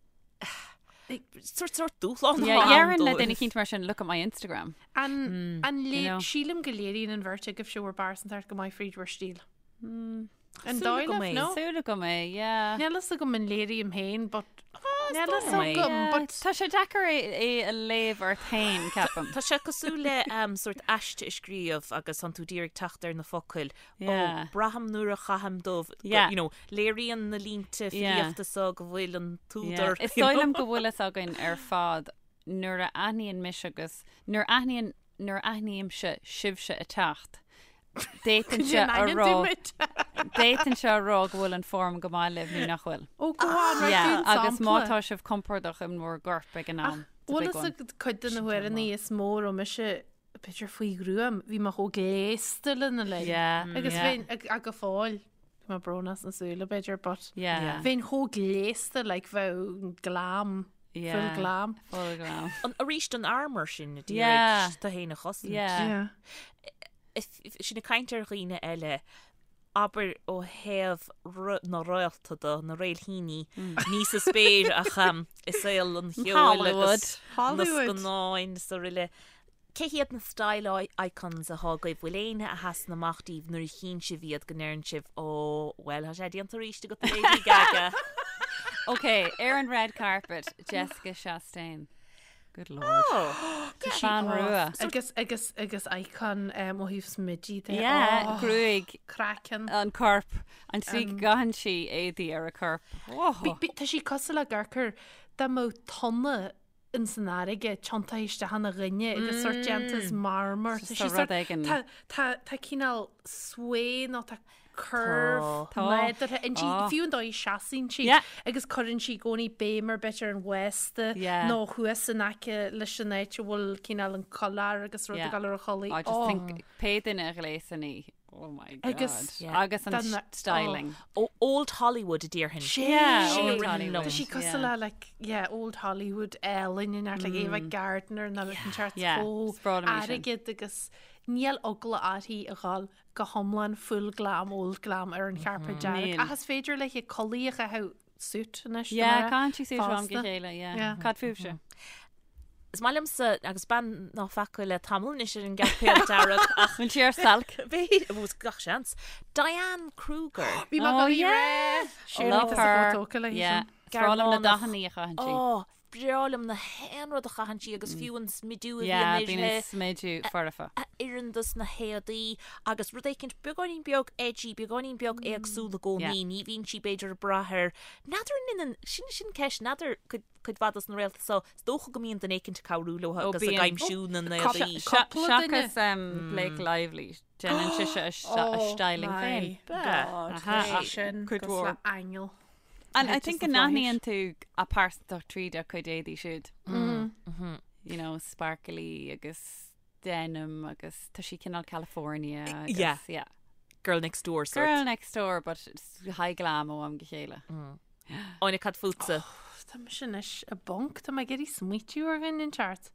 sort sort dúshlán Yeah, atá ann Déarfainn le dóibh. duine eicínt mar sin, look at my Instagram. An, an you lé, know. sílim go léiríonn an bheirt agaibhse bhur bpearsantacht go maith fríd bhur stíl. An Súil dóigh agam libh, é. no? Súil agam é, yeah. Níl fhios agam an léirím féin, but níl fhios dóigh liom é. agam, Yeah, but Tá sé deacair é, é a léamh ort féin, ceapaim. Tá sé cosúil le um, sort aiste a scríobh agus tánn tú d'iarraidh teacht ar na focail. Yeah. Ó, braithim nuair a chaithim dubh, go- Yeah. you know, léiríonn na línte Yeah. filíochta so go bhfuil an Yeah. t-údar. Is you dóigh know. liom go bhfuil fhios againn ar fad nuair a aithníonn mise agus nuair a aithníonn nuair a aithnímse sibhse ag teacht, d'fhéadfainnse a rá d'fhéadfainnse a rá go bhfuil an form go maith libh nó nach bhfuil. Ó, go on, right, Yeah, dún agus má sampla. tá sibh compordach in bhur gcorp ag an am. It's a Bhfuil big fhios one. agat cuid de na huaireanna is mó a raibh mise b'fhéidir faoi ghruaim, bhí mé chomh gléasta lena linn. Yeah, Agus yeah. bheinn ag ag go fóill, bhí mé brónach sna súile b'fhéidir, but Yeah. bheinn chomh gléasta like bheadh glam, full Yeah. glam. Full glam. An, arís an armour sin a Yeah. d'iarraidh tú féin a chosaint. Yeah. Yeah. If, if, sinn ag caint ar dhaoine eile, abair ó thaobh na réalta de, na réilthíní, ní sa spéir ach um, i saol an cheoil Hollywood. agus na Hollywood. scannáin is araile. Cé hiad na style icons atá agaibh? Bhfuil éinne a sheasann amach daoibh nuair a chíonn sibh iad go ndeireann sibh, Ó, bhuel, tá sé déanta arís agat a Lady Gaga. Ok, ar an red carpet, Jessica Chastain. Good lord. Oh, Bean rua. Agus agus agus icon um, ó thaobh smididh de. Yeah, Oh, gruaig craiceann. an corp. An tslí go gcaitheann sí éadaí ar a corp. Oh. Tá sí cosúil le gur dá mbeadh tonna in san fharraige tiontaithe isteach ina dhuine agus sort déanta as marmar. Tá Just sí a sort rud éigin. tá tá tá cineál sway nó tá curve Tá. nádúrtha inti Tá. fiú an dóigh a seasann sí Yeah. agus cuireann sí i gcónaí béim ar bit ar an bhféasta Yeah. nó thuas in aice leis an áit a bhfuil cineál an collar agus rud Yeah. ag dul ar a chulaith. I just Oh. think pé duine a ghléasann í. Oh my god. Agus- Yeah. Agus an Dan- styling. Ó, Old Hollywood a déarfainn. Yeah, Sin Old a ritheann Hollywood. liom. Tá sí cosúil Yeah. le like, yeah, old Hollywood Ellen in like Ava Gardner nó an teart Yeah, chomh is breá liom í sin. airgead agus níl eagla uirthi a dhul go hiomlán full glam, old glam ar an chairpéad dearg. Níl. Ach is féidir léi culaith a chaitheamh suit anois. Yeah, mar caitheann sí suit ó am go fosta. chéile, yeah. Yeah. Cad fúibhse? Is maith liomsa agus bean ná feaca le tamall anois ar an gcairpéad dearg ach Bhfuil sí ar stailc? bhí bhús gach seans. Diane Kruger. Bhí mé Oh, go yeah. yeah. Love her. Tóca Yeah. Is breá liom na dathanna a chaitheann sí. Ó, breá liom na haon rud a chaitheann sí agus fiú an smidiú a Yeah, bhíonn bíonn an uirthi. smidiú foirfe. a oireann dos na héadaí agus rud éicint beagáinín beag edgy, beagáinín beag éagsúil i gcónaí, Yeah. ní bhíonn sí b'fhéidir ag brath ar n'fheadar an ionann, sin sin ceist, n'fheadar cuid cuid mhaith dos na réalta so, is dócha go mbíonn duine éicint ag cabhrú leo Ó, agus ag bíonn. aimsiú na n-éadaí. Cúpla duine. Seachas um, Blake Lively, déanann sise a Oh a styling féin. Bea. Aha. Sin Cuid cosúil mhór. le aingeal. And I Just think the go n-aithníonn tú a pearsantacht tríd a cuid éadaí siúd. You know, sparkly agus denim agus tá sí cineál California agus Yeah. yeah. Girl next door sort. Girl next door but high glam ó am go chéile. Áine cad fútsa? Tá mise anois i bponc, tá mé ag iarraidh smaoitiú ar dhuine inteacht.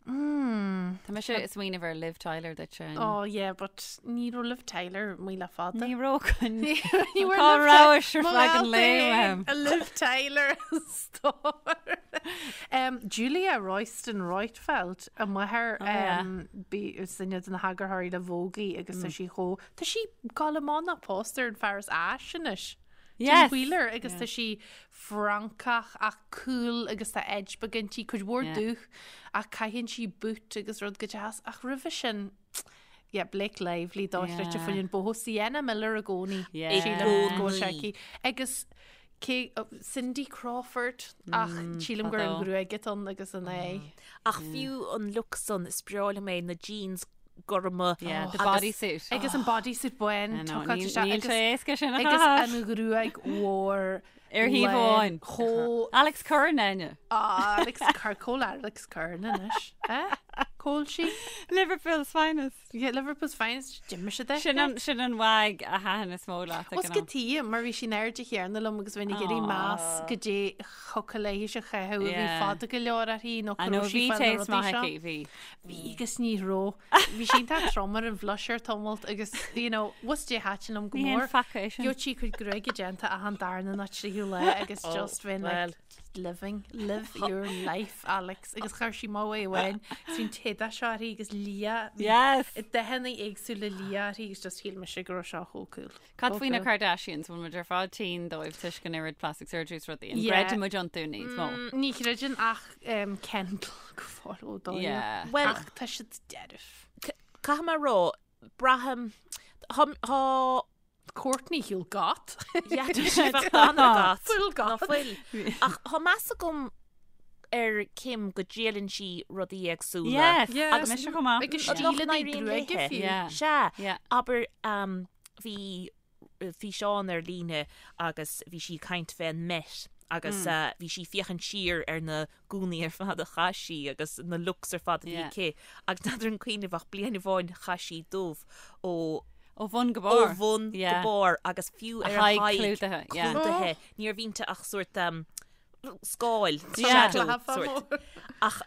Mm. Tá mise ag smaoineamh ar Liv Tyler duit sin. Oh yeah, but ní raibh Liv Tyler amuigh le fada. Ní raibh chun Ní raibh Cá Liv rabhais Ty- ar Mo feadh an ghalta lae féin, uaim. a Liv Tyler stór. Um, Julia Royston Roitfeld a máthair Oh, yeah. um, bí is duine de na heagarthóirí le Vogue í agus tá sí chomh Tá sí ag dul amach pósta ar an fear as Áis anois. Tim Yes. Wheeler agus tá sí Francach ach cool agus tá edge beag inti, cuid mhór Yeah. dúch ach caitheann sí boot agus rud go deas ach roimhe sin yeah, Blake Lively dochreidte Yeah. faoin an boho Sienna Miller i gcónaí. Yeah. Sílim go bhfuil sé I gcónaí. aici. Agus cé oh, Cindy Crawford ach sílim gur an fadó. ghruaig atá ann agus an é. Ach fiú an look san is breá liom é na jeans gorma. Yeah, the Agus- bodysuit. Agus an bodysuit bán I know, tucáilte níl isteach níl agus sé éasca sin a agus chaitheamh. an ghruaig mhór Ar thaobh amháin. Chomh Alex Curran Áine. Ah, Alex Cur Cól Alex Curran anois. Eh? Cól sí? Liverpool's finest. Yeah, Liverpool's finest D'imigh sé Sin an sin an wag a thaitin is mó leat ag Os an go am. tí mar bhí sí in airde chéanna liom agus bheinn ag iarraidh meas go dté thiocfadh léi a chaitheamh a bhí Yeah. fada go leor uirthi nó I go know raibh sí bhí fá na taste rudaí maith seo. aici, bhí. Bhí agus ní raibh. Bhí sí iontach trom ar an bhlusher tamalt agus you know, was dé thaitin liom go Ní haon mór. faca é sin. Gheobhadh sí cuid gruaige déanta achan darna nó tríú lá agus Oh, just bheinn well. like living, live your life, Alex. Agus chuir sí mo amháin, is bhí'n téada seo uirthi agus liath. Bhí Yes. Dathanna éagsúla liath uirthi agus just shíl mise go raibh seo chomh cool. Cad Chomh faoi na cool. Kardashians bhfuil muid ar fad tinn dóibh toisc an oiread plastic surgery is rudaí. An Yeah. gcreideann muid iontu níos mó. Ní chreideann ach um, Kendall go fóill ó dóigh. Yeah. Well, Ach tá siad dearf. caithfidh mé a rá, braithim tá tá Kourtney shiúil gat. Yeah, tá sí bheith an-gat. Fuil Ná gat. fuil. Ach tá meas agam ar Kim go dtriaileann sí rudaí éagsúla. Yes. Yeah. Agus mise chomh maith. Agus Nach stíleanna n-éiríonn gruaige léithe. fiú. Yeah. Sea, Yeah. abair um, bhí físeán ar líne agus bhí sí ag caint fén Met agus mm. bhí sí ag féachaint siar ar na gúnaí ar fad a chaith sí agus na looks ar fad a bhí Yeah. aici agus n'fheadar an cuimhneamh ach bliain amháin chaith sí dubh ó Ó bhun go ó barr. bhun go Yeah. barr agus fiú A ar a haghaidh haghaidh clúdaithe, yeah. clúdaithe. Ní raibh inti ach sórt um, scáil, Yeah. shadow sórt. Ach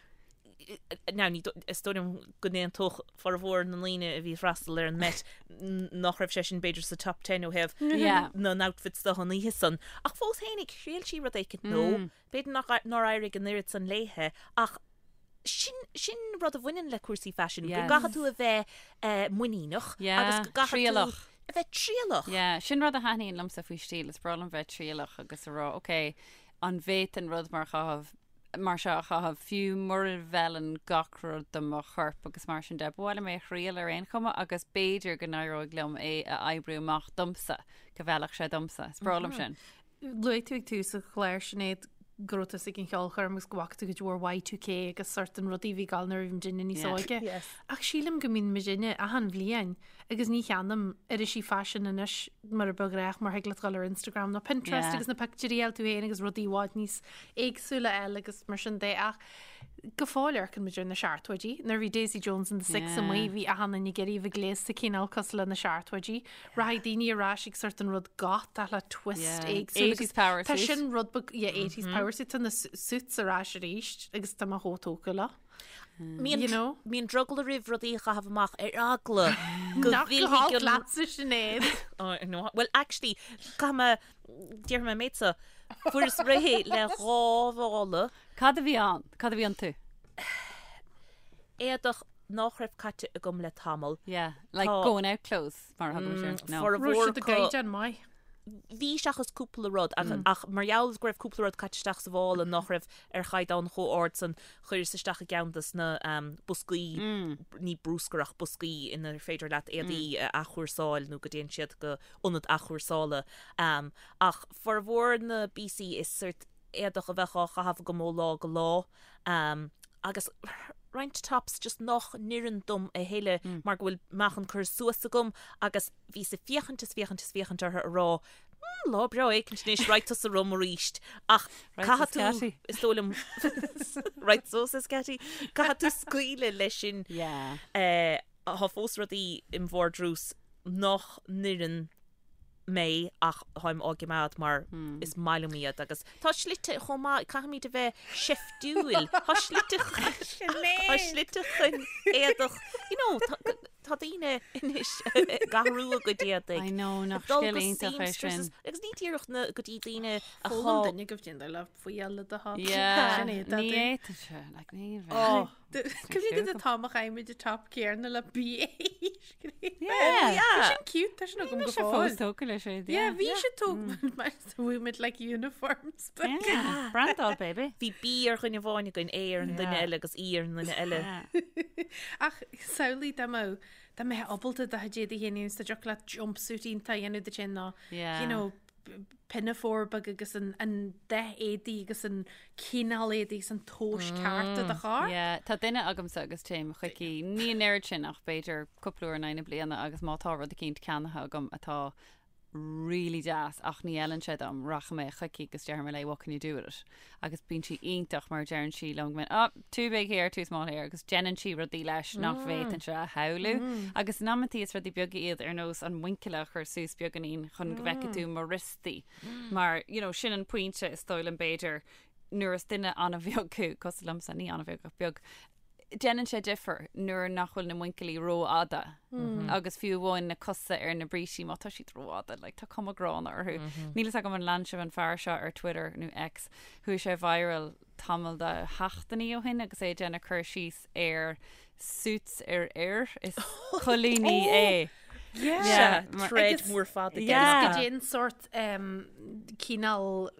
now ní is dóigh liom go n-aontódh formhór na ndaoine a bhí ag freastal ar an Met nach raibh sé sin b'fhéidir sa top 10 ó thaobh Yeah. na n-outfits de an oíche san. Ach fós fhéinig, thriail sí rud éicint nó b'fhéidir nach nár éirigh an oiread san léithe ach sin sin rud a bhaineann le cúrsaí faisin, go Yes. gcaithfidh tú a bheith eh, muiníneach Yeah, agus go gcaithfidh tú trialach. a bheith trialach. Yeah, sin rud a thaitníonn liomsa faoi stíl, is breá liom bheith trialach agus a rá, ok, an bhféadfainn rud mar chaitheamh mar seo a chaitheamh fiú mura bhfeileann gach rud do mo chorp agus mar sin de. Ba mhaith liom é a thriail ar aon chuma agus b'fhéidir go n-éireoidh liom é a oibriú amach domsa, go bhfeilfeadh sé domsa. Is breá liom sin. Luaigh tú ag tús an chláir Sinéad go raibh tusa ag an cheolchoirm agus go bhfaca tú cuid mhór Y2K agus sort an rudaí a bhí ag gabháil nuair a bhí muidinne níos Yeah. óige. Yes. Ach sílim go mbíonn muidinne achan bhliain agus ní cheannaím irisí faisin anois mar a ba ghnách mar thig leat dul ar Instagram nó Pinterest Yeah. agus na pictiúirí a fháil tú féin agus rudaí i bhfad níos éagsúla eile agus mar sin de ach go fóill amharcann muid ar na seachtóidí. Nuair a bhí Daisy Jones and the Six Yeah. amuigh bhí achan duine ag iarraidh a bheith gléasta cineál cosúil le na seachtóidí. Rachaidh daoine ar ais ag sort an rud goth ach le twist Yeah. éagsúil 80s power Tá suit. sin rud beag yeah, 80s power suit tá na suits ar ais arís agus tá mé chomh tógtha leo. Bíonn You know? Bíonn drogall roimh rudaí a chaitheamh amach ar eagla go Nach go bhfillfidh halt an- leatsa Sinéad. Oh, no. Well, actually, caithfidh mé déarfaidh mé an méid seo, fuaireas réidh le dhá mhála Cad a bhí ann? Cad a bhí iontu? éadach nach raibh caite agam le tamall. Yeah, like Tá- going out clothes mar a thugann siad. No. Formhór Raibh siad i acu- gcaighdeán maith. Bhí seachas cúpla rud ach, ach mar gheall go raibh cúpla rud caite isteach sa mhála nach raibh ar chaighdeán chomh ard san chuireas isteach i gceann des na um, boscaí ní bruscar ach boscaí inar féidir leat éadaí a athchúrsáil nó go dtéann siad go ionad athchúrsála. Um, ach formhór na bpíosaí is sort éadach a bheadh á chaitheamh agam ó lá go lá um, agus roinnt tops just nach n-oireann dom a thuilleadh mar go bhfuil meáchan curtha suas agam agus bhíos ag féachaint is féachaint is féachaint orthu a rá. Lá breá éicint anois, raghaidh tusa romham arís. Ach caithfidh tú, is dóigh liom, right so, says Katie, caithfidh tú scaoileadh leis sin. Yeah. Tá fós rudaí im vardrús nach n-oireann mé ach táim á gcimeád mar is maith liom iad agus tá slite chomh maith, caithfimid a bheith seiftiúil, tá slite tá slite chun éadach, you know, tá daoine anois ag athrú a gcuid éadaigh. I know, nach scil iontach é sin. Agus ní díreach na go dtí daoine a Foghlaim duine go bhféadfadh le faoi eile do thá. Yeah, ní fhéadfadh sé, like, ní bheadh. Cuimhnigh go t-am a chaith muid an top céanna le BA scríofa. Yeah. Tá sin cute, tá sin agam go fóill. Fós tógtha leis é. Yeah, bhí sé tógtha mar bhí muid like uniforms. Yeah, brandáil baby. Bhí B ar dhuine amháin againn, A ar an duine eile agus E ar an duine eile. Ach samhlaigh dá mbeadh dá mbeifeá ábalta do chuid éadaí féin a dhéanamh, dá dtiocfadh leat jumpsuit iontach a dhéanamh duit féin nó, you know, pinafore beag agus an dath éadaí agus an cineál éadaí agus an tomhas ceart do do charr. Yeah, tá duine agamsa agus téim chuici, ní an oiread sin ach b'fhéidir cúpla uair in aghaidh na bliana agus má tá rud eicínt ceannaithe agam atá really deas ach ní fheileann sé dom, rachaidh mé chuici agus déarfaidh mé léi what can you do with it? Agus bíonn sí iontach mar deireann sí liom go minic, oh, too big here, too small here agus déanann sí rudaí leis nach bhféadfainnse a shamhlú. Agus in amantaí is rudaí beaga iad ar nós an muinchille a chur suas beagáinín chun go bhfeicfidh tú mo wriostaí. Mar, you know, sin an pointe is dóigh liom b'fhéidir nuair is duine an-bheag thú, cosúil liomsa, ní an-bheag ach beag, déanann sé difear nuair nach bhfuil na muinchillí rófhada agus fiú amháin na cosa ar na brístí má tá siad rófhada, like, tá cuma gránna orthu. Níl fhios agam an lean sibh an fear seo ar Twitter nó X, chuaigh sé viral tamall de sheachtainí ó shin agus é ag déanamh cur síos ar suits ar fhir is coilíní é. Yeah. Thread mór fada. Yeah. Agus goidé an sórt cineál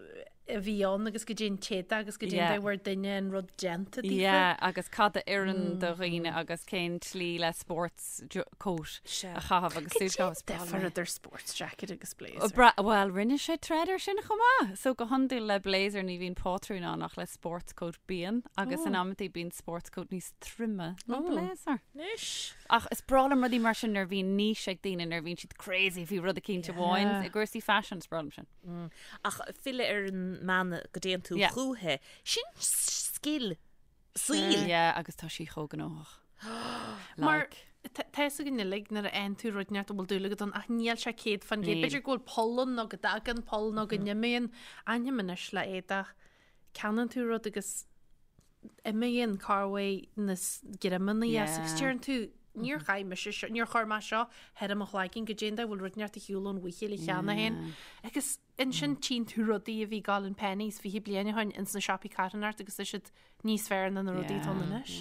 a bhí ann agus goidé an t-éadach agus goidé an dóigh a bhfuair duine an rud déanta daofa. Yeah, agus cad a oireann do dhaoine agus cén tslí le sports coat a chaitheamh agus suit a chaitheamh. Difear idir sports jacket agus blazer. Bhuel, rinne sé thread ar sin chomh maith. So go hiondúil le blazer ní bhíonn pátrún ann ach le sports coat bíonn agus in amantaí bíonn sports coat níos troime ná blazer. Anois. Ach is breá liom rudaí mar sin nuair a bhíonn niche ag daoine, nuair a bhíonn siad crazy faoi rud eicínt amháin i gcúrsaí fashion, is breá liom sin. Ach filleadh ar an mbean go dtéann tú chúithi, sin scil saoil. Yeah, agus tá sí chomh gnóthach. Mar tá fhios againn uilig nuair a fhaigheann tú rud inteacht a bhfuil dúil agat ann ach níl sé 100%. B'fhéidir go bhfuil poll ann nó go dtagann poll nó go n-imíonn. Aithním anois le éadach. Ceannaíonn tú rud agus imíonn corruair na greamanna as agus deireann tú níor chaith mise seo, níor chuir mé seo thar mo chloigeann goidé an dóigh a bhfuil rud inteacht ar shiúl ón bhuicheall cheana féin. Agus ansin tchíonn tú rudaí a bhí ag gabháil in Penneys 20 bliain ó shin ins na siopaí carthanachta agus tá siad níos fearr ná na rudaí atá ann anois.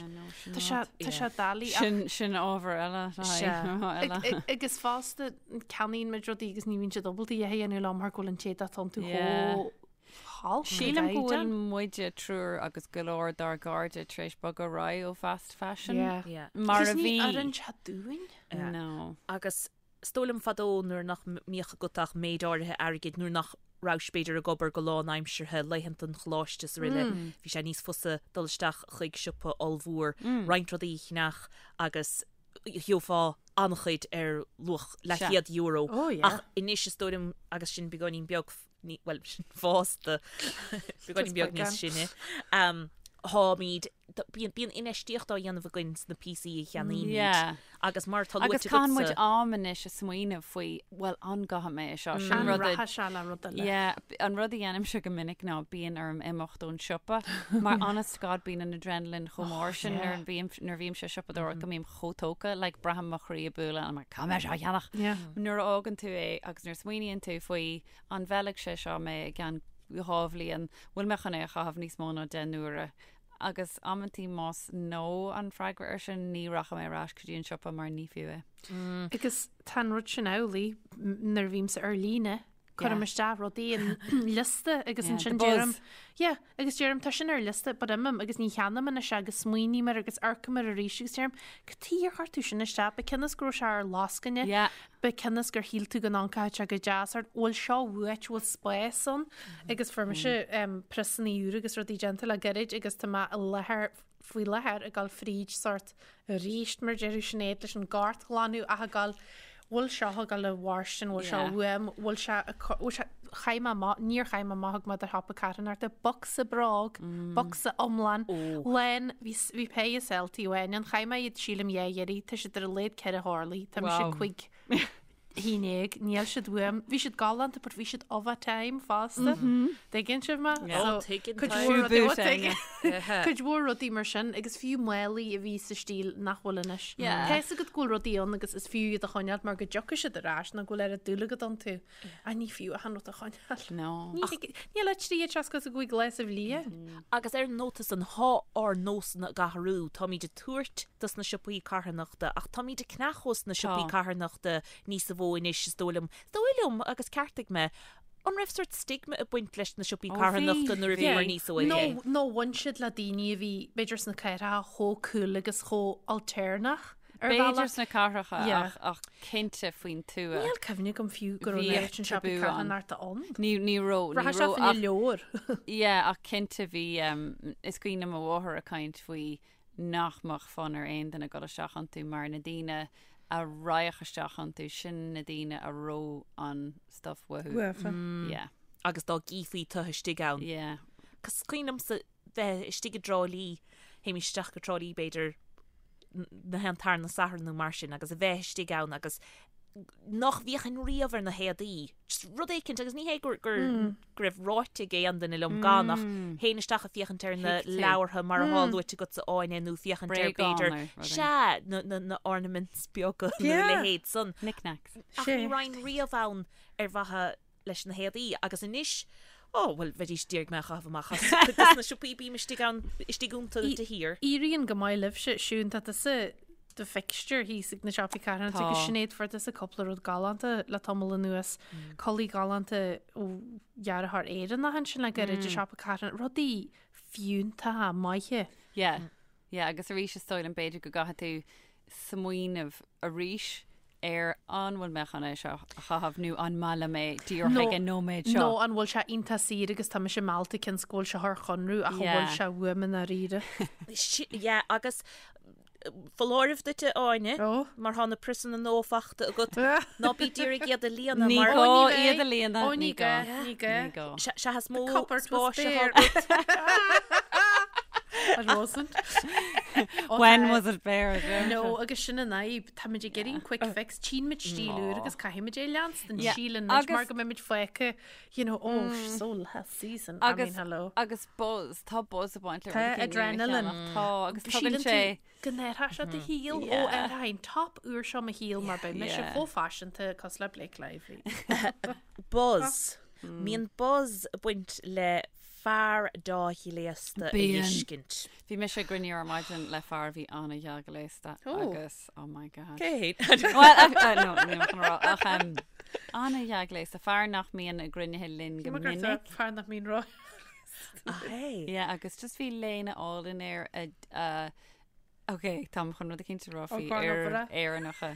Tá sé tá sé doiligh ach Sin sin ábhar eile eile. Agus fosta ceannaíonn muid rudaí agus ní bhíonn siad ábalta a dhath a dhéanamh leo mar go bhfuil an t-éadach atá iontu chomh Sílim go bhfuil muide triúr agus go leor dár gcairde tar éis bogadh ar aghaidh ó fast fashion. Mar a bhí. Ní oireann sé dúinn. No. Agus is dóigh liom fadó nuair nach mbíodh agat ach méid áirithe airgid, nuair nach rabhais b'fhéidir ag obair go lánaimseartha, laethanta an choláiste is araile, bhí sé níos fusa dul isteach chuig siopa ollmhór, roinnt rudaí a cheannach agus gheofá an-chuid ar luach leathchéad euro. Ach anois is dóigh liom agus sinn beagáinín beag bhuel, fásta, beagáinín beag níos sine, táimid, bíonn infheistíocht á dhéanamh againn sna píosaí a cheannaímid agus mar atá luaite agatsa. Agus caitheann muid am anois ag smaoineamh faoi, bhuel, an gcaithfidh mé é seo? Sin rud a. An rachaidh sé le rud eile? Yeah, an rud a dhéanaimse go minic ná bíonn orm imeacht ón siopa mar honest to God bíonn an adrenaline chomh mór sin nuair a bhím, nuair a bhímse ag siopadóireacht go mbím chomh tógtha, like braithim mo chroí ag bualadh and I'm like, caithfidh mé seo a cheannach. Nuair a fhágann tú é agus nuair a smaoiníonn tú faoi An bhfeilfidh sé seo mé i gceann 2 bhliain? Bhfuil mé chun é a chaitheamh níos mó ná 10 n-uaire? Agus amantaí más no an freagra air sin, ní rachaidh mé ar ais go dtí an siopa mar ní fiú é. Agus tá an rud sin amhlaidh nuair a bhímse ar líne, cuirim isteach rudaí in liosta agus ansin deirim, yeah, Agus deirim, tá sin ar liosta, but imím agus ní cheannaím anois é agus smaoiním air agus amharcaim air arís agus deirim, cad chuige ar chuir tú sin isteach? Ba cionn is go raibh sé ar lascaine, Yeah. ba cionn is gur shíl tú go n-amharcfadh sé go deas ort, bhfuil seo uait, bhfuil spás ann? Agus fuair mise em, priosanna úra agus rudaí déanta le gairid agus tá mé i láthair faoi láthair ag dul fríd sort arís mar deir Sinéad leis an gcairt a ghlanadh ach ag dul bhfuil seo ag dul i bhfóirstean, bhfuil seo uaim, bhfuil sé, bhfuil sé. chaith mé amach, níor chaith mé amach thug mé do shiopa carthanachta, bocsa bróg, bocsa iomlán, lán, bhí bhí péire Celty amháin ann, chaith mé iad sílim dhá iarraidh, tá siad ar a laghad 4 horlaí, tá mise Wow. 15 haon, níl siad uaim, bhí siad galánta but bhí siad of a time fosta. Tuigeann sibh mé? Yeah. So, Ó, tuigeann cuid tá. mhór rudaí- Shoe ó, boot, tuigeann. Áine. Cuid mhór rudaí mar sin agus fiú málaí a bhí sa stíl nach bhfuil anois. Yeah. Tá fhios agat go bhfuil rudaí ann agus is fiú iad a choinneáil mar go dtiocfaidh siad ar ais nó go bhfuil oiread dúil agat iontu. Ach ní fiú achan rud a choinneáil. No. Ní thig- Níl ach 365 lá sa bhliain. Agus ar an nóta san, thá ár nósanna ag athrú. Táimid ag tabhairt dos na siopaí carthanachta ach táimid ag ceannach ós na siopaí Tá. carthanachta níosa mhó anois, is dóigh liom. Is dóigh liom, agus ceartaigh mé, an raibh sort stigma ag baint leis na siopaí Ó, bhí, carthanachta nuair a bhíomar bhí. níos óige? Nó nó bhain siad le daoine a bhí b'fhéidir sna cathracha chomh cool agus chomh alternative ar B'fhéidir bhealach. sna cathracha Yeah. ach, ach cinnte faoin tuath. Níl cuimhne agam fiú go raibh Bhíodh an oiread sin siopaí tabú ann. carthanachta ann. Ní ní raibh ní Rachadh sé raibh fá ach leabhar. yeah, ach cinnte bhí um, is cuimhin liom mo mháthair ag caint faoi nach mbeadh fonn ar aon duine dul isteach iontu mar na daoine a raghadh isteach iontu sin na daoine a raibh an stuff uathu. Uafa. Yeah. Agus dá gcífí tu istigh ann. Yeah. Cos cuimhin liomsa bheith istigh i dTrá Lí, théimis isteach go Trá Lí b'fhéidir na haon tarna Satharn nó mar sin agus a bheith istigh ann agus nach bhféachfainn riamh ar na héadaí. Just rud éicint agus ní hé gur gur go raibh ráite ag aon duine liom gan ach théinn isteach ag féachaint ar na Thuig tú. leabhartha mar atá luaite agatsa Áine nó féachaint ar Bréagáin b'fhéidir nó rudaí. sea na na na ornaments beaga nó a Yeah. leithéid san. Knickknacks. Ach ní raghainn riamh ann ar mhaithe leis na héadaí agus anois, ó, bhuel, bheidís d'iarraidh mé a chaitheamh amach as cuid de na siopaí, bím istigh ann, istigh iontu de shíor. Éiríonn go maith libhse, Siún, tá tusa do fixture thíos ag na siopaí carthanachta Tá. agus Sinéad fuair tusa cúpla rud galánta le tamall anuas, culaith galánta ó dhearthóir Éireannach ansin le gairid i siopa carthanachta, rudaí fiúntacha maithe. Yeah. Yeah, agus arís is dóigh liom b'fhéidir go gcaithfidh tú smaoineamh arís ar an bhfuil mé chun é seo a chaitheamh nó an maith liom é díreach ag an nóiméad seo. Nó an bhfuil sé iontach saor agus tá mise meallta cionn is go bhfuil sé thar chonradh ach an bhfuil Yeah. sé uaim i ndáiríre. Yeah, agus foláireamh duit a Áine, Ó. mar tá na priosanna nua fachta agat, ná bí d'iarraidh iad a líonadh Ní mar gá Ó, ní bheidh. iad a líonadh. Ó, ní gá, ní gá. Ní gá. Sea is mó cupboard was spáis atá bare. agat. It wasn't. Ó, When tá- was it bare? No, agus sin an fhadhb, táimid ag iarraidh an quick fix, tchímid stíl úr agus caithfimid é leanstan Yeah, síleann muid mar agus- go mbeimid fágtha, you know, oh, so last season, I mean, Agus hello. agus buzz, tá buzz ag baint le Tá rudaí nua a adrenaline. cheannach. Tá agus tugann Síleann sé tú go n-athróidh sé do shaol ó Yeah. ar an top úr seo mo shaol mar beidh mise Yeah. chomh faiseanta cosúil le Blake Lively. Buzz. Mbíonn buzz ag baint le fear dea-ghléasta a Bíonn. fheiscint. Bhí mise ag cruinniú ar maidin le fear a bhí an-dea-ghléasta Ó. agus oh my god. Cé Well, uh, no, níl mé chun a rá, ach um, an-dea-ghléasta, fear nach mbíonn i gcruinnithe linn go minic. Fear nach mbíonn rá. Hey. Yeah, agus just bhí léine álainn air a, a Ok, táim chun rud eicínt a rá faoi Ó, fhir Barbara. Éireannacha.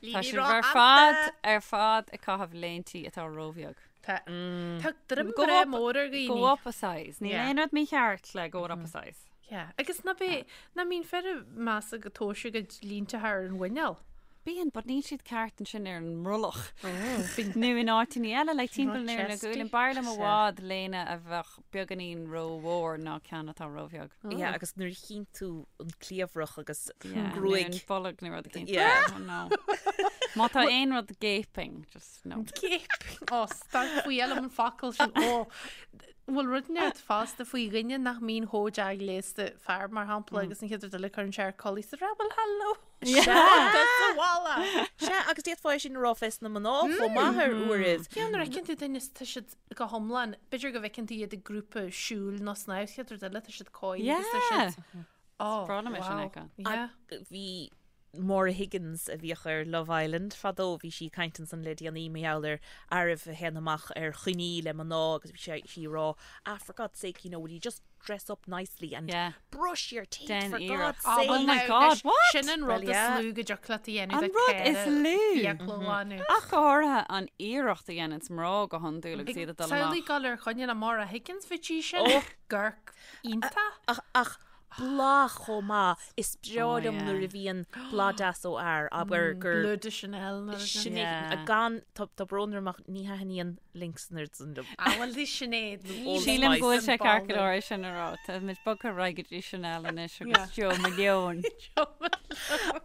Tá sibh ar fad ar fad ag caitheamh léintí atá róbheag. Tá tá droim Go breá up- mór ar dhaoine. Go up a size. Níl Yeah. aon rud mícheart le go up a size. Yeah. Agus ná bé ná mbíonn fir ag meas go tomhaiste a gcuid línte thar an mhuineál. Bíonn, but níl siad ceart ansin ar an mbrollach. Bíonn Nó in áiteanna eile, like timpeall Not ar na chesty. guaillí. B'fhearr liom i bhfad léine a bheadh beagáinín rómhór ná ceann atá róbheag. Yeah, agus nuair a chíonn tú an cliabhrach agus Yeah, nó gruaig. an bolg nó rud eicínt. Yeah. Oh, no. Má tá aon rud gaping, just no. Gaping. Ó, start faoi eile an focal sin. Ó, bhfuil rud neart fosta faoi dhuine nach mbíonn chomh dea-ghléasta fear mar shampla agus an chéad rud eile cuireann sé air culaith sa rabble hello. Sa bhalla. Sea, agus d'fhéadfá é sin a rá fés na mná chomh maith ar uairibh. Ceann nuair a fheiceann tú duine is tá siad go hiomlán, b'fhéidir go bhfeiceann tú iad i grúpa siúil nó snámh, chéad rud eile tá siad cóir agus tá Yeah. siad Oh, breá liom é sin wow. a fheiceáil. Yeah. Bhí Maura Higgins a bhíodh ar Love Island fadó, bhí sí ag caint ansan le déanaí mar gheall ar fhearaibh a théann amach ar choinní le mná agus bhí sé sí ag rá, ah, for God's sake, you know, will you just dress up nicely and Yeah. brush your teeth Déan for iarracht. God's Oh, sake. well, Oh my now, God, anois, what? Sin an rud Well, is yeah. lú go dtiocfadh leat a dhéanamh An le rud is ceithre lú. fiacla a ghlanadh. Ach go háirithe an iarracht a dhéanann mná go hiondúil agus iad ag dul Samhlaigh amach. dul ar choinne le Maura Higgins bhí sí sin. Gorc iontach. Ach, ach. Blas chomh maith, is breá liom nuair a bhíonn blas deas ó fhear, abair gur. Bleu de Chanel nó rud Sin é, gan, tá brón orm ach ní thaitníonn Lynx an oiread san liom. Ah bhuel bhí Sinéad nó Sílim go bhfuil sé ceart go leor é sin a rá. Tá muid bogtha ar aghaidh go dtí Chanel anois agus Jo Malone.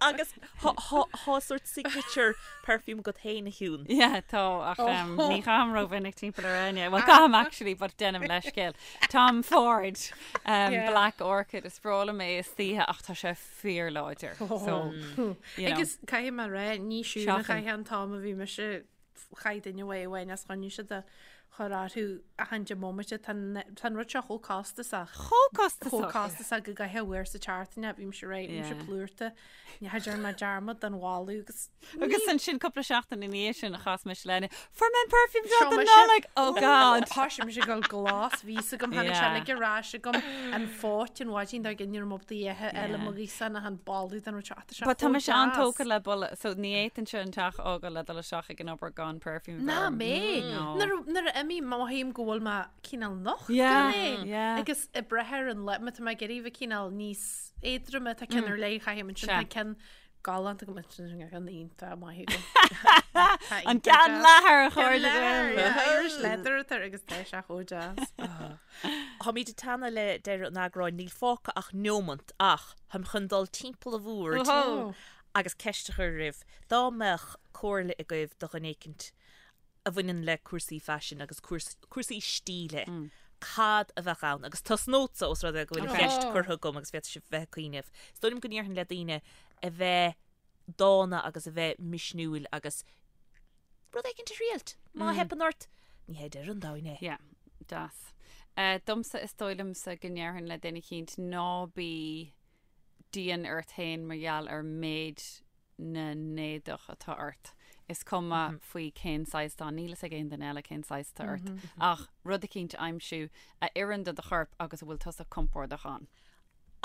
Agus tá sort signature perfume agat féin a Shiún. Yeah, tá ach ní chaithim rómhinic timpeall ar éinne. Well caithim actually but déanaim leithscéal. Tom Ford, Black Orchid, is breá liom é istoíche ach tá sé fíorláidir. So, you know. Agus caithfidh mé a rá, ní Siún a chaith an t-am a bhí mise chaith duine uaidh amháin as choinnigh siad a chur orthu achan deich mbomaite. Tá an rud seo chomh costasach. Chomh costasach. Chomh costasach go gcaithfeá uair sa tseachtain é, bhí mise réidh, bhí mise plúrta. Ní dhearna mé dearmad den bholadh agus. Agus ansin cúpla seachtain ina dhiaidh sin a chas mise le Áine, Fuair mé an perfume seo don Nollaig! Oh God! Thoisigh mise ag dul glas, bhí fhios agam, tháinig sé uilig ar ais agam, an phóit an mhaidin dár gcionn ní raibh mé ábalta a ithe eile mo ghíosán ach an boladh den rud seo, tá sé But tá mise an-tógtha le boladh, so ní fhéadfainnse an teach a fhágáil le dul isteach ag an obair gan perfume Ná mé! Nuair a imím, mothaím go bhfuil mé cineál nocht gan é. Agus ag brath ar an lá, má tá mé ag iarraidh bheith cineál níos éadroime, tá ceann ar leith a chaithim ansin, tá ceann galánta agam ansin, tá ceann iontach maith agam. An ceann leathair a chairde. Irish leather atá air agus tá sé chomh deas. Táimid ag teannadh le deireadh an eagráin, níl fágtha ach neomant ach táim chun dul timpeall an bhoird agus ceist a chur oraibh, dá mbeadh comhairle agaibh do dhuine éicint a bhaineann le cúrsaí faisin agus cúrsaí stíle, cad a bheadh ann? Agus tosnódsa, ós rud é go bhfuil an cheist curtha agam agus féadfaidh sibh bheith ag cuimhneamh. Is dóigh liom go ndéarfainn le daoine a bheith dána agus a bheith misniúil agus rud éicint a thriailt. Má theipeann ort, ní hé deireadh an domhain é. Yeah, deas. Domsa is dóigh liomsa go ndéarfainn le duine eicínt ná bí dian ort féin mar gheall ar méid na n-éadach atá ort. Is cuma faoi cén saghas atá, níl fhios ag aon duine eile cén saghas atá ort, ach rud eicínt a aimsiú a oireann do do chorp agus a bhfuil tusa compordach ann.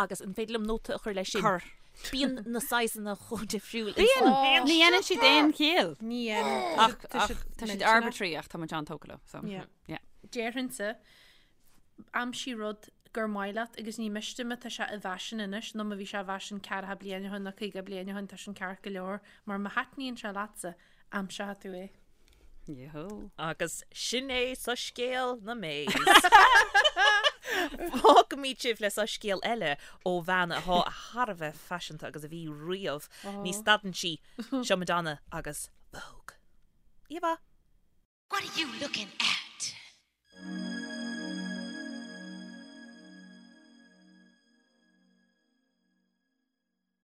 Agus an féidir liom nóta a chur leis sin? Cuir. Bíonn na saghsanna chomh difriúil. Bíonn! Ní dhéanann siad aon chiall. Ní dhéanann. Ach tá siad arbitrary ach tá muid an-tógtha leo, so yeah. Déarfainnse Aimsigh rud gur maith leat agus ní miste má tá sé i bhfaisean anois nó má bhí sé i bhfaisean ceathracha bliain ó shin nó 50 bliain ó shin tá sin ceart go leor mar má thaitníonn sé leatsa, aimseoidh tú é. Yahoo. Agus sin é soiscéal na Mays. Fágfaimid sibh le soiscéal eile ó bhean atá thar a bheith faiseanta agus a bhí riamh. Ní stadann sí. Seo Madonna agus Vogue. Oíche mhaith. What are you looking at?